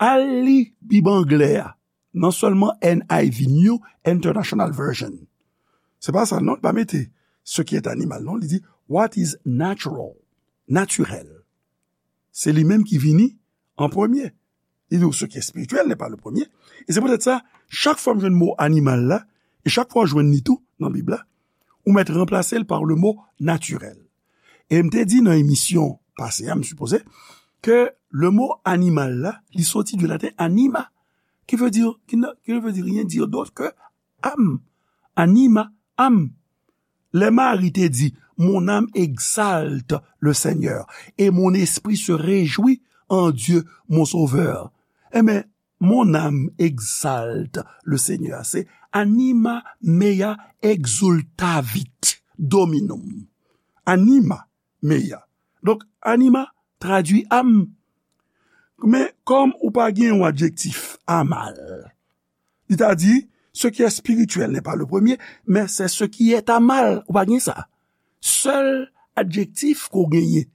Al li Bib anglè a, non sèlman N I V, New International Version. Se pa sa, non, li pa mete ce qui est animal, non, li di what is natural, natirèl. Se li menm ki vini an premye. Li di ce qui est spirituel n'est pas le premier. E se poutèt sa, chak fwa m jwenn mo animal la, e chak fwa w jwenn li tou nan Bib la, ou mèt ranplase l pa le mo natirèl. E m te di nan emisyon pase a, m sipoze, ke le mo animal la, li soti du laten anima, qui veut dire, qui ne, qui ne veut dire rien dire d'autre que âme. Anima, âme. Lè Mari te di, mon âme exalte le Seigneur, et mon esprit se réjouit en Dieu, mon Sauveur. Enben, mon âme exalte le Seigneur. Se anima mea exultavit dominum. Anima mea. Donk, anima tradui âme. Men, kòm ou pa gen yon adjektif amal, li ta di, ce qui est spirituel n'est pas le premier, mais c'est ce qui est amal. Ou pa gen sa. Sèl adjektif ke w genyen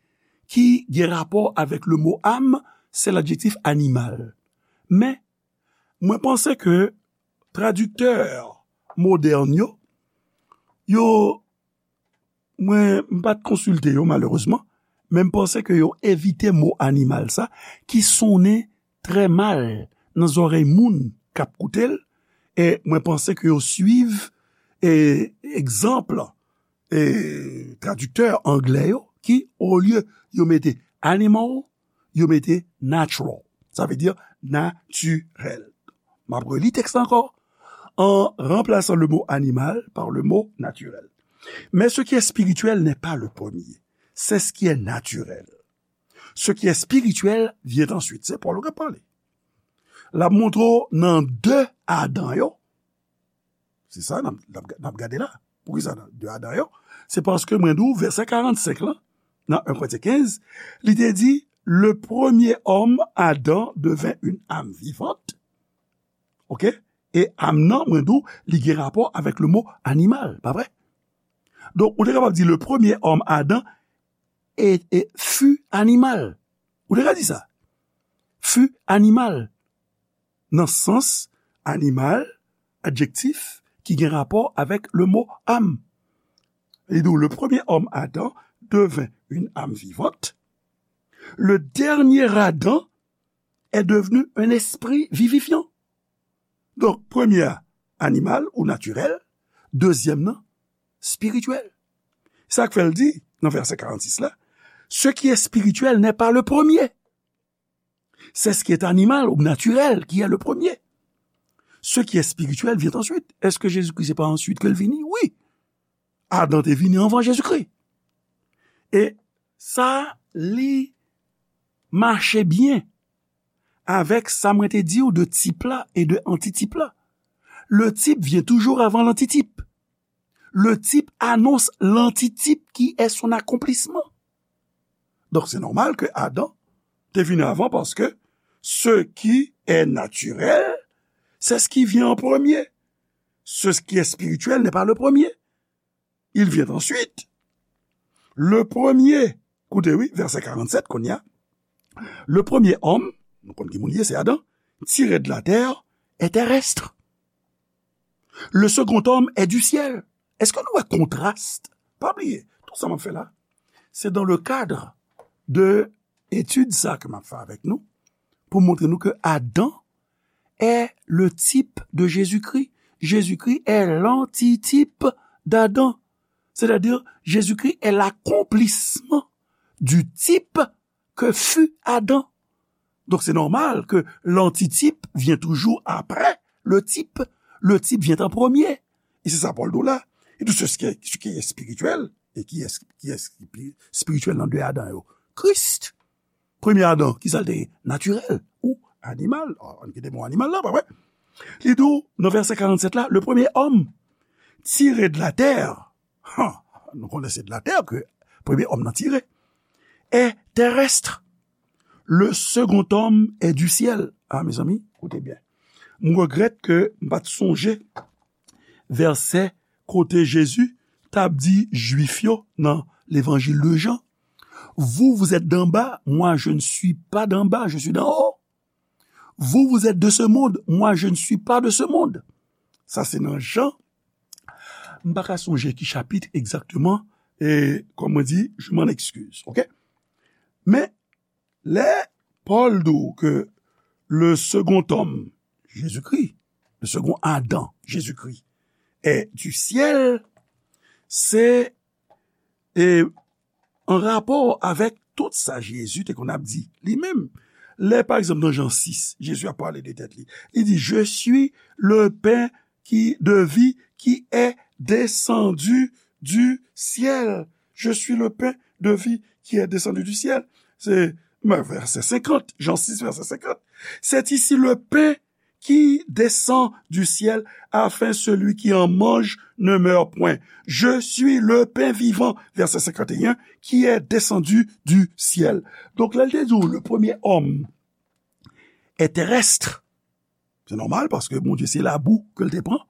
ki gen rapò avèk le mo âme, se ladjektif animal. Men, mwen panse ke tradiktè modèn yo, yo, mwen, m pa t konsilte yo, malerezman, men m panse ke yo evite mo animal sa, ki sonnen trè mal nan zòrèy moun k ap koute l, e mwen panse ke yo swiv, e, egzanp, e, tradiktè anglè yo, ki, olye yo mete animal, yo mete natural. Sa vle di natirèl. M ap reli tèks la ankò. En remplaçant le mot animal par le mot naturel. Mais ce qui est spirituel n'est pas le premier. C'est ce qui est naturel. Ce qui est spirituel vient ensuite. Se Pòl k ap pale. L ap montre w nan de Adan yo. Se sa n ap, n ap, n ap gade la. Poukisa nan de Adan yo? Se paske mwen di w vèsè karannsenk lan, nan en Korentyen kenz, li te di, le premier homme, Adam, devint une âme vivante. Oke? E âme nan, mwen di w, li gen rapò avèk le mo animal, pa vre? Donk, ou te kapab di, le premier homme, Adam, e, e fut animal. Ou te ka di sa. Fut animal. Nan sans animal, adjektif ki gen rapò avèk le mo âme. Li di w, le premier homme, Adam, devint une âme vivante. Le dernier Adam est devenu un esprit vivifiant. Donk, premye a animal ou natirèl, dezyèm nan spirityèl. Sa k fè l di, nan vèsè karannsis la, ce qui est spirituel n'est pas le premier. C'est ce qui est animal ou naturel qui est le premier. Ce qui est spirituel vient ensuite. Èske Jezikri se pa answit ke l vini? Wi. Adan te vini anvan Jezikri. E sa, li mache byen avèk sa mwen te di w de tip la e de antitip la. Le type vient toujours avant l'antitype. Le type annonce l'antitype qui est son accomplissement. Donk, se nòmal ke Adan te vini avan, paske ce qui est naturel, c'est ce qui vient en premier. Ce qui est spirituel n'est pas le premier. Il vient ensuite. Le premier, koute wi, vèsè karannsèt kounye a. Le premier homme, nou konn ki moun li ye, se Adan, tiré de la terre, est terrestre. Le second homme est du ciel. Èske nou wè kontras? Pa bliye, tout sa m ap fè la, se dans le cadre de etid sa ke m ap fè avèk nou, pou montre nou ke Adan est le type de Jésus-Christ. Jésus-Christ est l'antitype d'Adam. C'est-à-dire, Jésus-Christ est l'accomplissement du type que fut Adam. Donc, c'est normal que l'antitype vient toujours après le type. Le type vient en premier. Et c'est ça Paul dit là. Et tout ce qui est, ce qui est spirituel, et qui est, qui est spirituel dans deux Adam, Christ. Premye Adan, ki sa l te ye? Natirèl ou animal. Ann kite mo animal la, pa vre? Li di w, nan vèsè karannsèt la, le premier homme tiré de la terre, ha, nou konnen se de la terre ke premye homme nan tire, est terrestre. Le second homme est du ciel. Ah, mezanmi, koute byen. M regrèt ke m pa t sonje vèsè kote Jezi t ap di Jwif yo nan Levanjil de Jan, Vous, vous êtes d'en bas, moi, je ne suis pas d'en bas, je suis d'en haut. Vous, vous êtes de ce monde, moi, je ne suis pas de ce monde. Sa se nan Jan. M pa ka sonje ki chapit egzakteman, e, kòm mwen di, je m'en excuse, ok? Men, lè Pòl di w ke le second homme, Jésus-Christ, le second Adam, Jésus-Christ, est du ciel, se, e, an rapò avèk tout sa Jezi te konn ap di li menm. Lè, pa egzanp, nan Jan sis, Jezi ap pale de tèt li. Li di, Je suis le pain qui, de vie qui est descendu du ciel. Je suis le pain de vie qui est descendu du ciel. Se, ben, vèsè senkant, Jan sis, vèsè senkant. C'est ici le pain qui descend du ciel, afin celui qui en mange ne meure point. Je suis le pain vivant, verset cinquante et un, qui est descendu du ciel. Donk, lè l te di w, le premier homme est terrestre, se nòmal, paske Bondye se labou ke l te pran,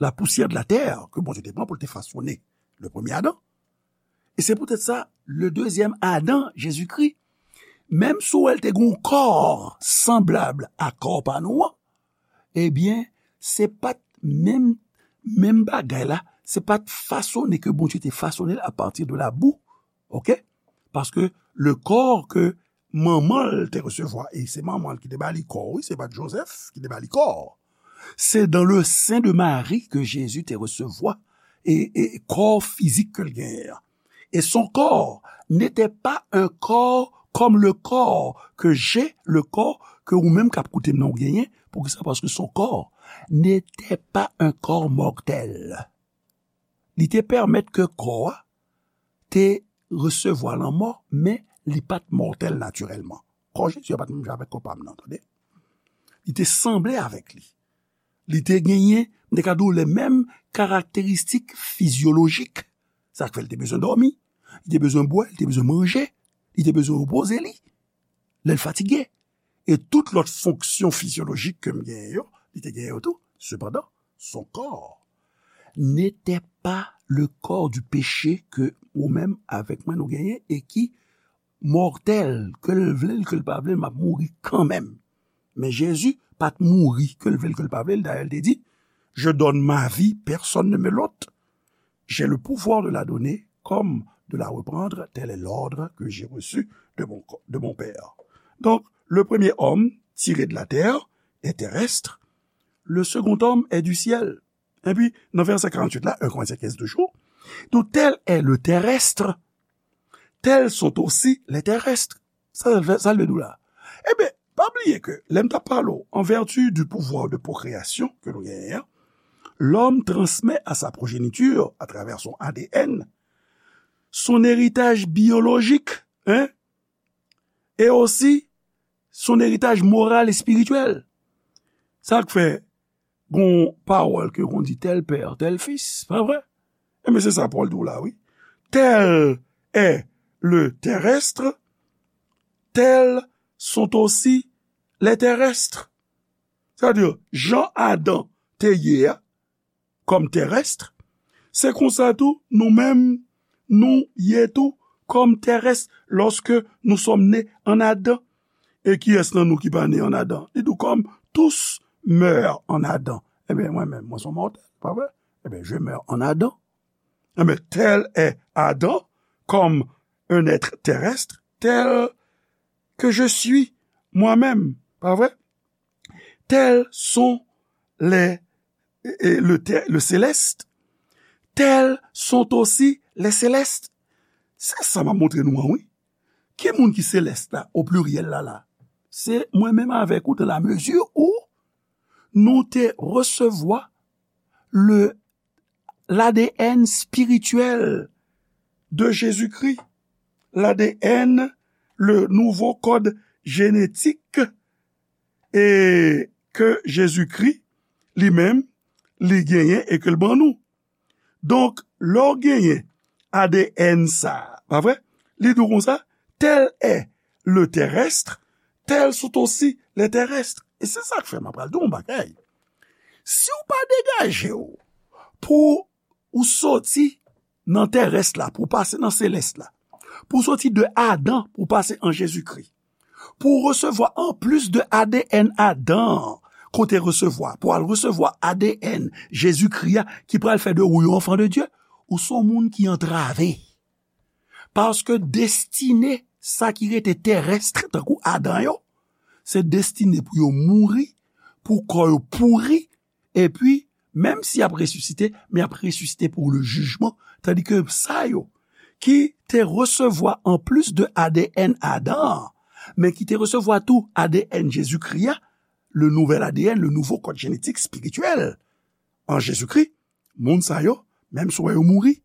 la poussière de la terre ke Bondye te pran pou l te fasone le premye Adan. E se poutèt sa, le deuxième Adam, Jezikri, menm si w wè l te gen yon kò sanblab a kò pa nou an, ebyen, se pa t menm, menm bagay la, se pa t fasone ke Bondye te fasone l apati de labou, ok? Paske le kò ke manman l te resevwa, e se manman l ki te ba li kò, wi, se pa t Jozèf ki te ba li kò. Se dans le sein de Marie que Jésus te resevwa e, e kò fizik ke l genyen an. Et son corps n'était pas un corps comme le corps que j'ai, le corps ke ou menm k ap koute m nan ou genyen. Poukisa? Paske son corps n'était pas un corps mortel. Li te pèmèt ke kò a te resevwa lanmò, men li pa t mòtèl natirèlman. Kò Jezi a pa t menm jan avèk kò pa m nan, tande. Li te sanble avèk li. Li te genyen, m te ka di w, les mêmes caractéristiques physiologiques. Sa k fè l te bezwen dòmi, li te bezwen bwè, li te bezwen manje, li te bezwen repoze li lè l fatige. E tout lòt fonksyon fizyolojik ke m genyen yo, li te genyen yo tou. Sepandan, son corps n'était pas le corps du péché ke ou menm avèk mwen nou genyen e ki mòtèl, ke l vle l, ke l pa vle l, m ap mouri kanmenm. Men Jezi pa t mouri, ke l vle l, ke l pa vle l. Dayè, l te di, Je donne ma vie, personne ne me l'ôte. J'ai le pouvoir de la donner comme de la reprendre, tel est l'ordre que j'ai reçu de mon, de mon Père. Donc, le premier homme tiré de la terre est terrestre, le second homme est du ciel. Epi, nan vèsè karanntuit la, un Corinthiens quinze toujou, donc, tel est le terrestre, tels sont aussi les terrestres. Sa, sa, sa l vle di w la. Ebyen, pa bliye ke lè m t ap pale w, en vertu du pouvoir de procréation ke nou genyen an, l'homme transmet à sa progéniture, à travers son A D N, son héritage biologique, hein, et aussi son héritage moral et spirituel. Sa k fè gon pawòl ke konn di tel père, tel fils, pa vre? Ebyen, se sa Pòl di w la, wi. Tel est le terrestre, tels sont aussi les terrestres. Sa vle di, jan Adan te ye a, kòm terès, se konsa tou, nou menm, nou ye tou, kòm terès, lorsque nous sommes nés en Adam. E kiyès nan nou ki pa ne an Adan? Li di w, comme tous meurent en Adam. Ebyen, mwen menm, mwen se yon mòtèl, pa vre? Ebyen, je meurs en Adam. Ebyen, tel est Adam, comme un être terrestre, tel que je suis moi-même, pa vre? Tels sont les, et le, le céleste, tels sont aussi les célestes. Se sa m ap montre nou an, wi. Ki moun ki selès la, o pliryèl la, la? Se mwen menm avèk ou, dans la mesure où nou te resevwa le, l'A D N spirituel de Jésus-Christ, l'A D N, le nouveau code génétique, e ke Jezikri li menm, li genyen e ke l ban nou. Donk, lè w genyen A D N sa a, pa vre? Li di w konsa, tel est le terrestre, tels sont aussi les terrestres. E se sa k fè m ap pral di w yon bagay. Si w pa degaje w pou ou soti nan terès la, pou w pase nan selès la, Pou soti de Adan, pou pase an Jezikri. Pou w resevwa anplis de A D N Adan an, ke w te resevwa, pou w al resevwa A D N Jezikri a, ki pral fè de ou yon anfan de Dye, ou se yon moun ki antrave. Paske destine sa ki rete terès, tankou Adan yo, se destine pou yo mouri, pou kò yo pouri, epi, menm si y ap resisite, men y ap resisite pou le jijman, tandike sa yo ki te resevwa anplis de A D N Adan an, men ki te resevwa tou A D N Jezikri a, le nouvel A D N, le nouvo kòd jenetik espirityèl an Jezikri, moun sa yo, menm si w wè yo mouri,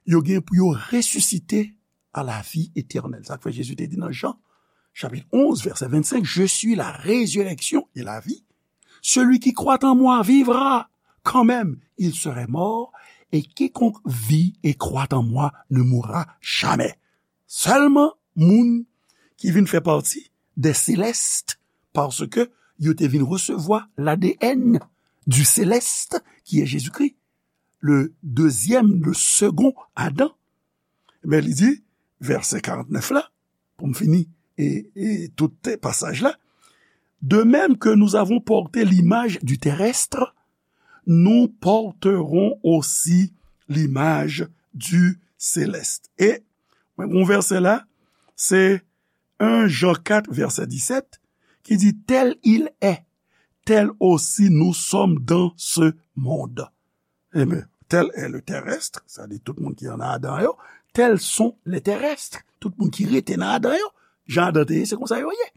yo gen pou yo resisite a la vi etènèl. Sa k fè Jezi te di nan Jan, chapit onz, vèsè vennsenk, Je suis la résurrection et la vie. Celui qui croit en moi vivra quand même. Il serait mort, et quiconque vit et croit en moi ne mourra jamais. Sèlman moun ki vin fè pati des célestes, paske yo te vin resevwa l'A D N du céleste, qui est Jésus-Christ, le deuxième, le second Adam. Men li di, vèsè karantnèf la, pou m fini e, e tout pasaj la, de même que nous avons porté l'image du terrestre, nous porterons aussi l'image du céleste. E mwen gon vèsè la, se en Jan kat, vèsè disèt, ki di, Tel il est, tel aussi nous sommes dans ce monde. Ebyen, tel est le terrestre, sa di tout moun ki an Adan yo, tels sont les terrestres, tout moun ki rete nan Adan yo, jan Adan te ye, se konsa yo ye.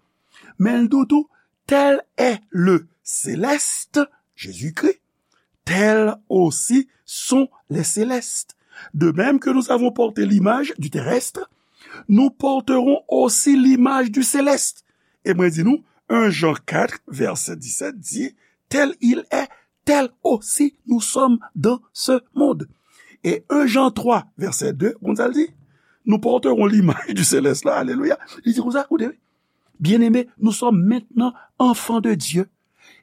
Men l di w tou, tel est le céleste, Jésus-Christ, tels aussi sont les célestes. De même que nous avons porté l'image du terrestre, nous porterons aussi l'image du céleste. E mwen di nou, en Jan kat, vèsè disèt di, Tel il est, tel aussi nous sommes dans ce monde. E en Jan twa, vèsè de, konn sa l di? Nous porterons l'image du céleste la, alelouya. Li di konsa, koute, wi. Bien-aimés, nous sommes maintenant enfants de Dieu.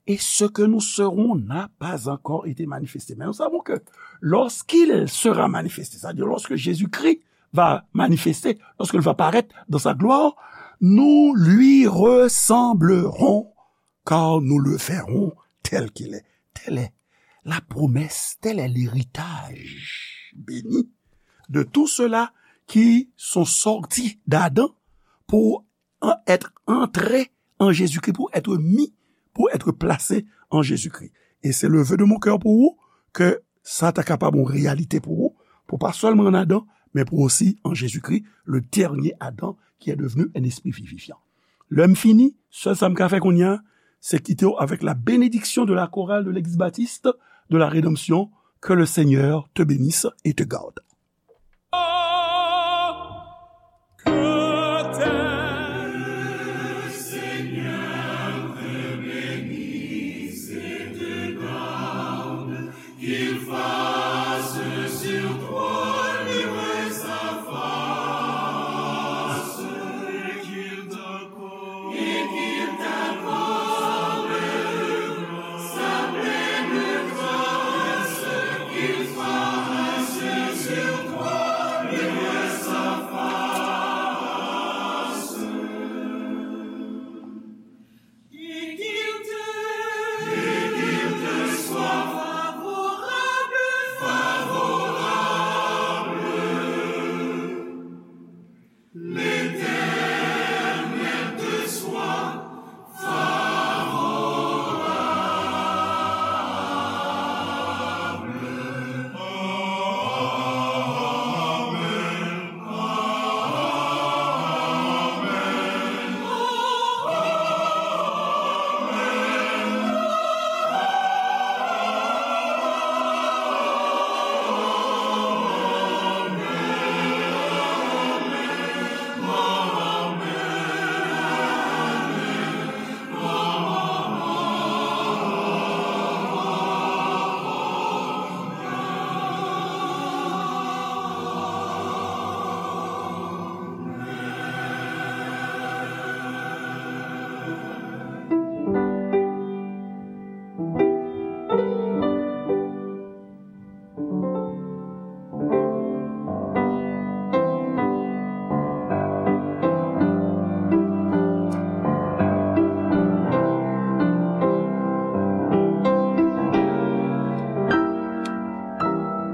Et ce que nous serons n'a pas encore été manifesté. Mais nous savons que lorsqu'il sera manifesté, c'est-à-dire lorsque Jésus-Christ va manifester, lorsqu'il va paraître dans sa gloire, nous lui ressemblerons, car nous le verrons tel qu'il est. Telle est la promesse, tel est l'héritage béni de tous ceux-là qui sont sortis d'Adam pour en- être entrés en Jésus-Christ, pour être mis, pour être placés en Jésus-Christ. Et c'est le vœu de mon cœur pour vous, que sa ta kapab yon reyalite pou ou, pou pa sèlman an Adan, men pou osi an Jezikri, le dernier Adam qui est devenu un esprit vivifiant. Lè m fini, sèl sa m ka fè kounye a, se kite w avec la bénédiction de la chorale de l'Église baptiste de la Rédemption. Que le Seigneur te bénisse et te garde.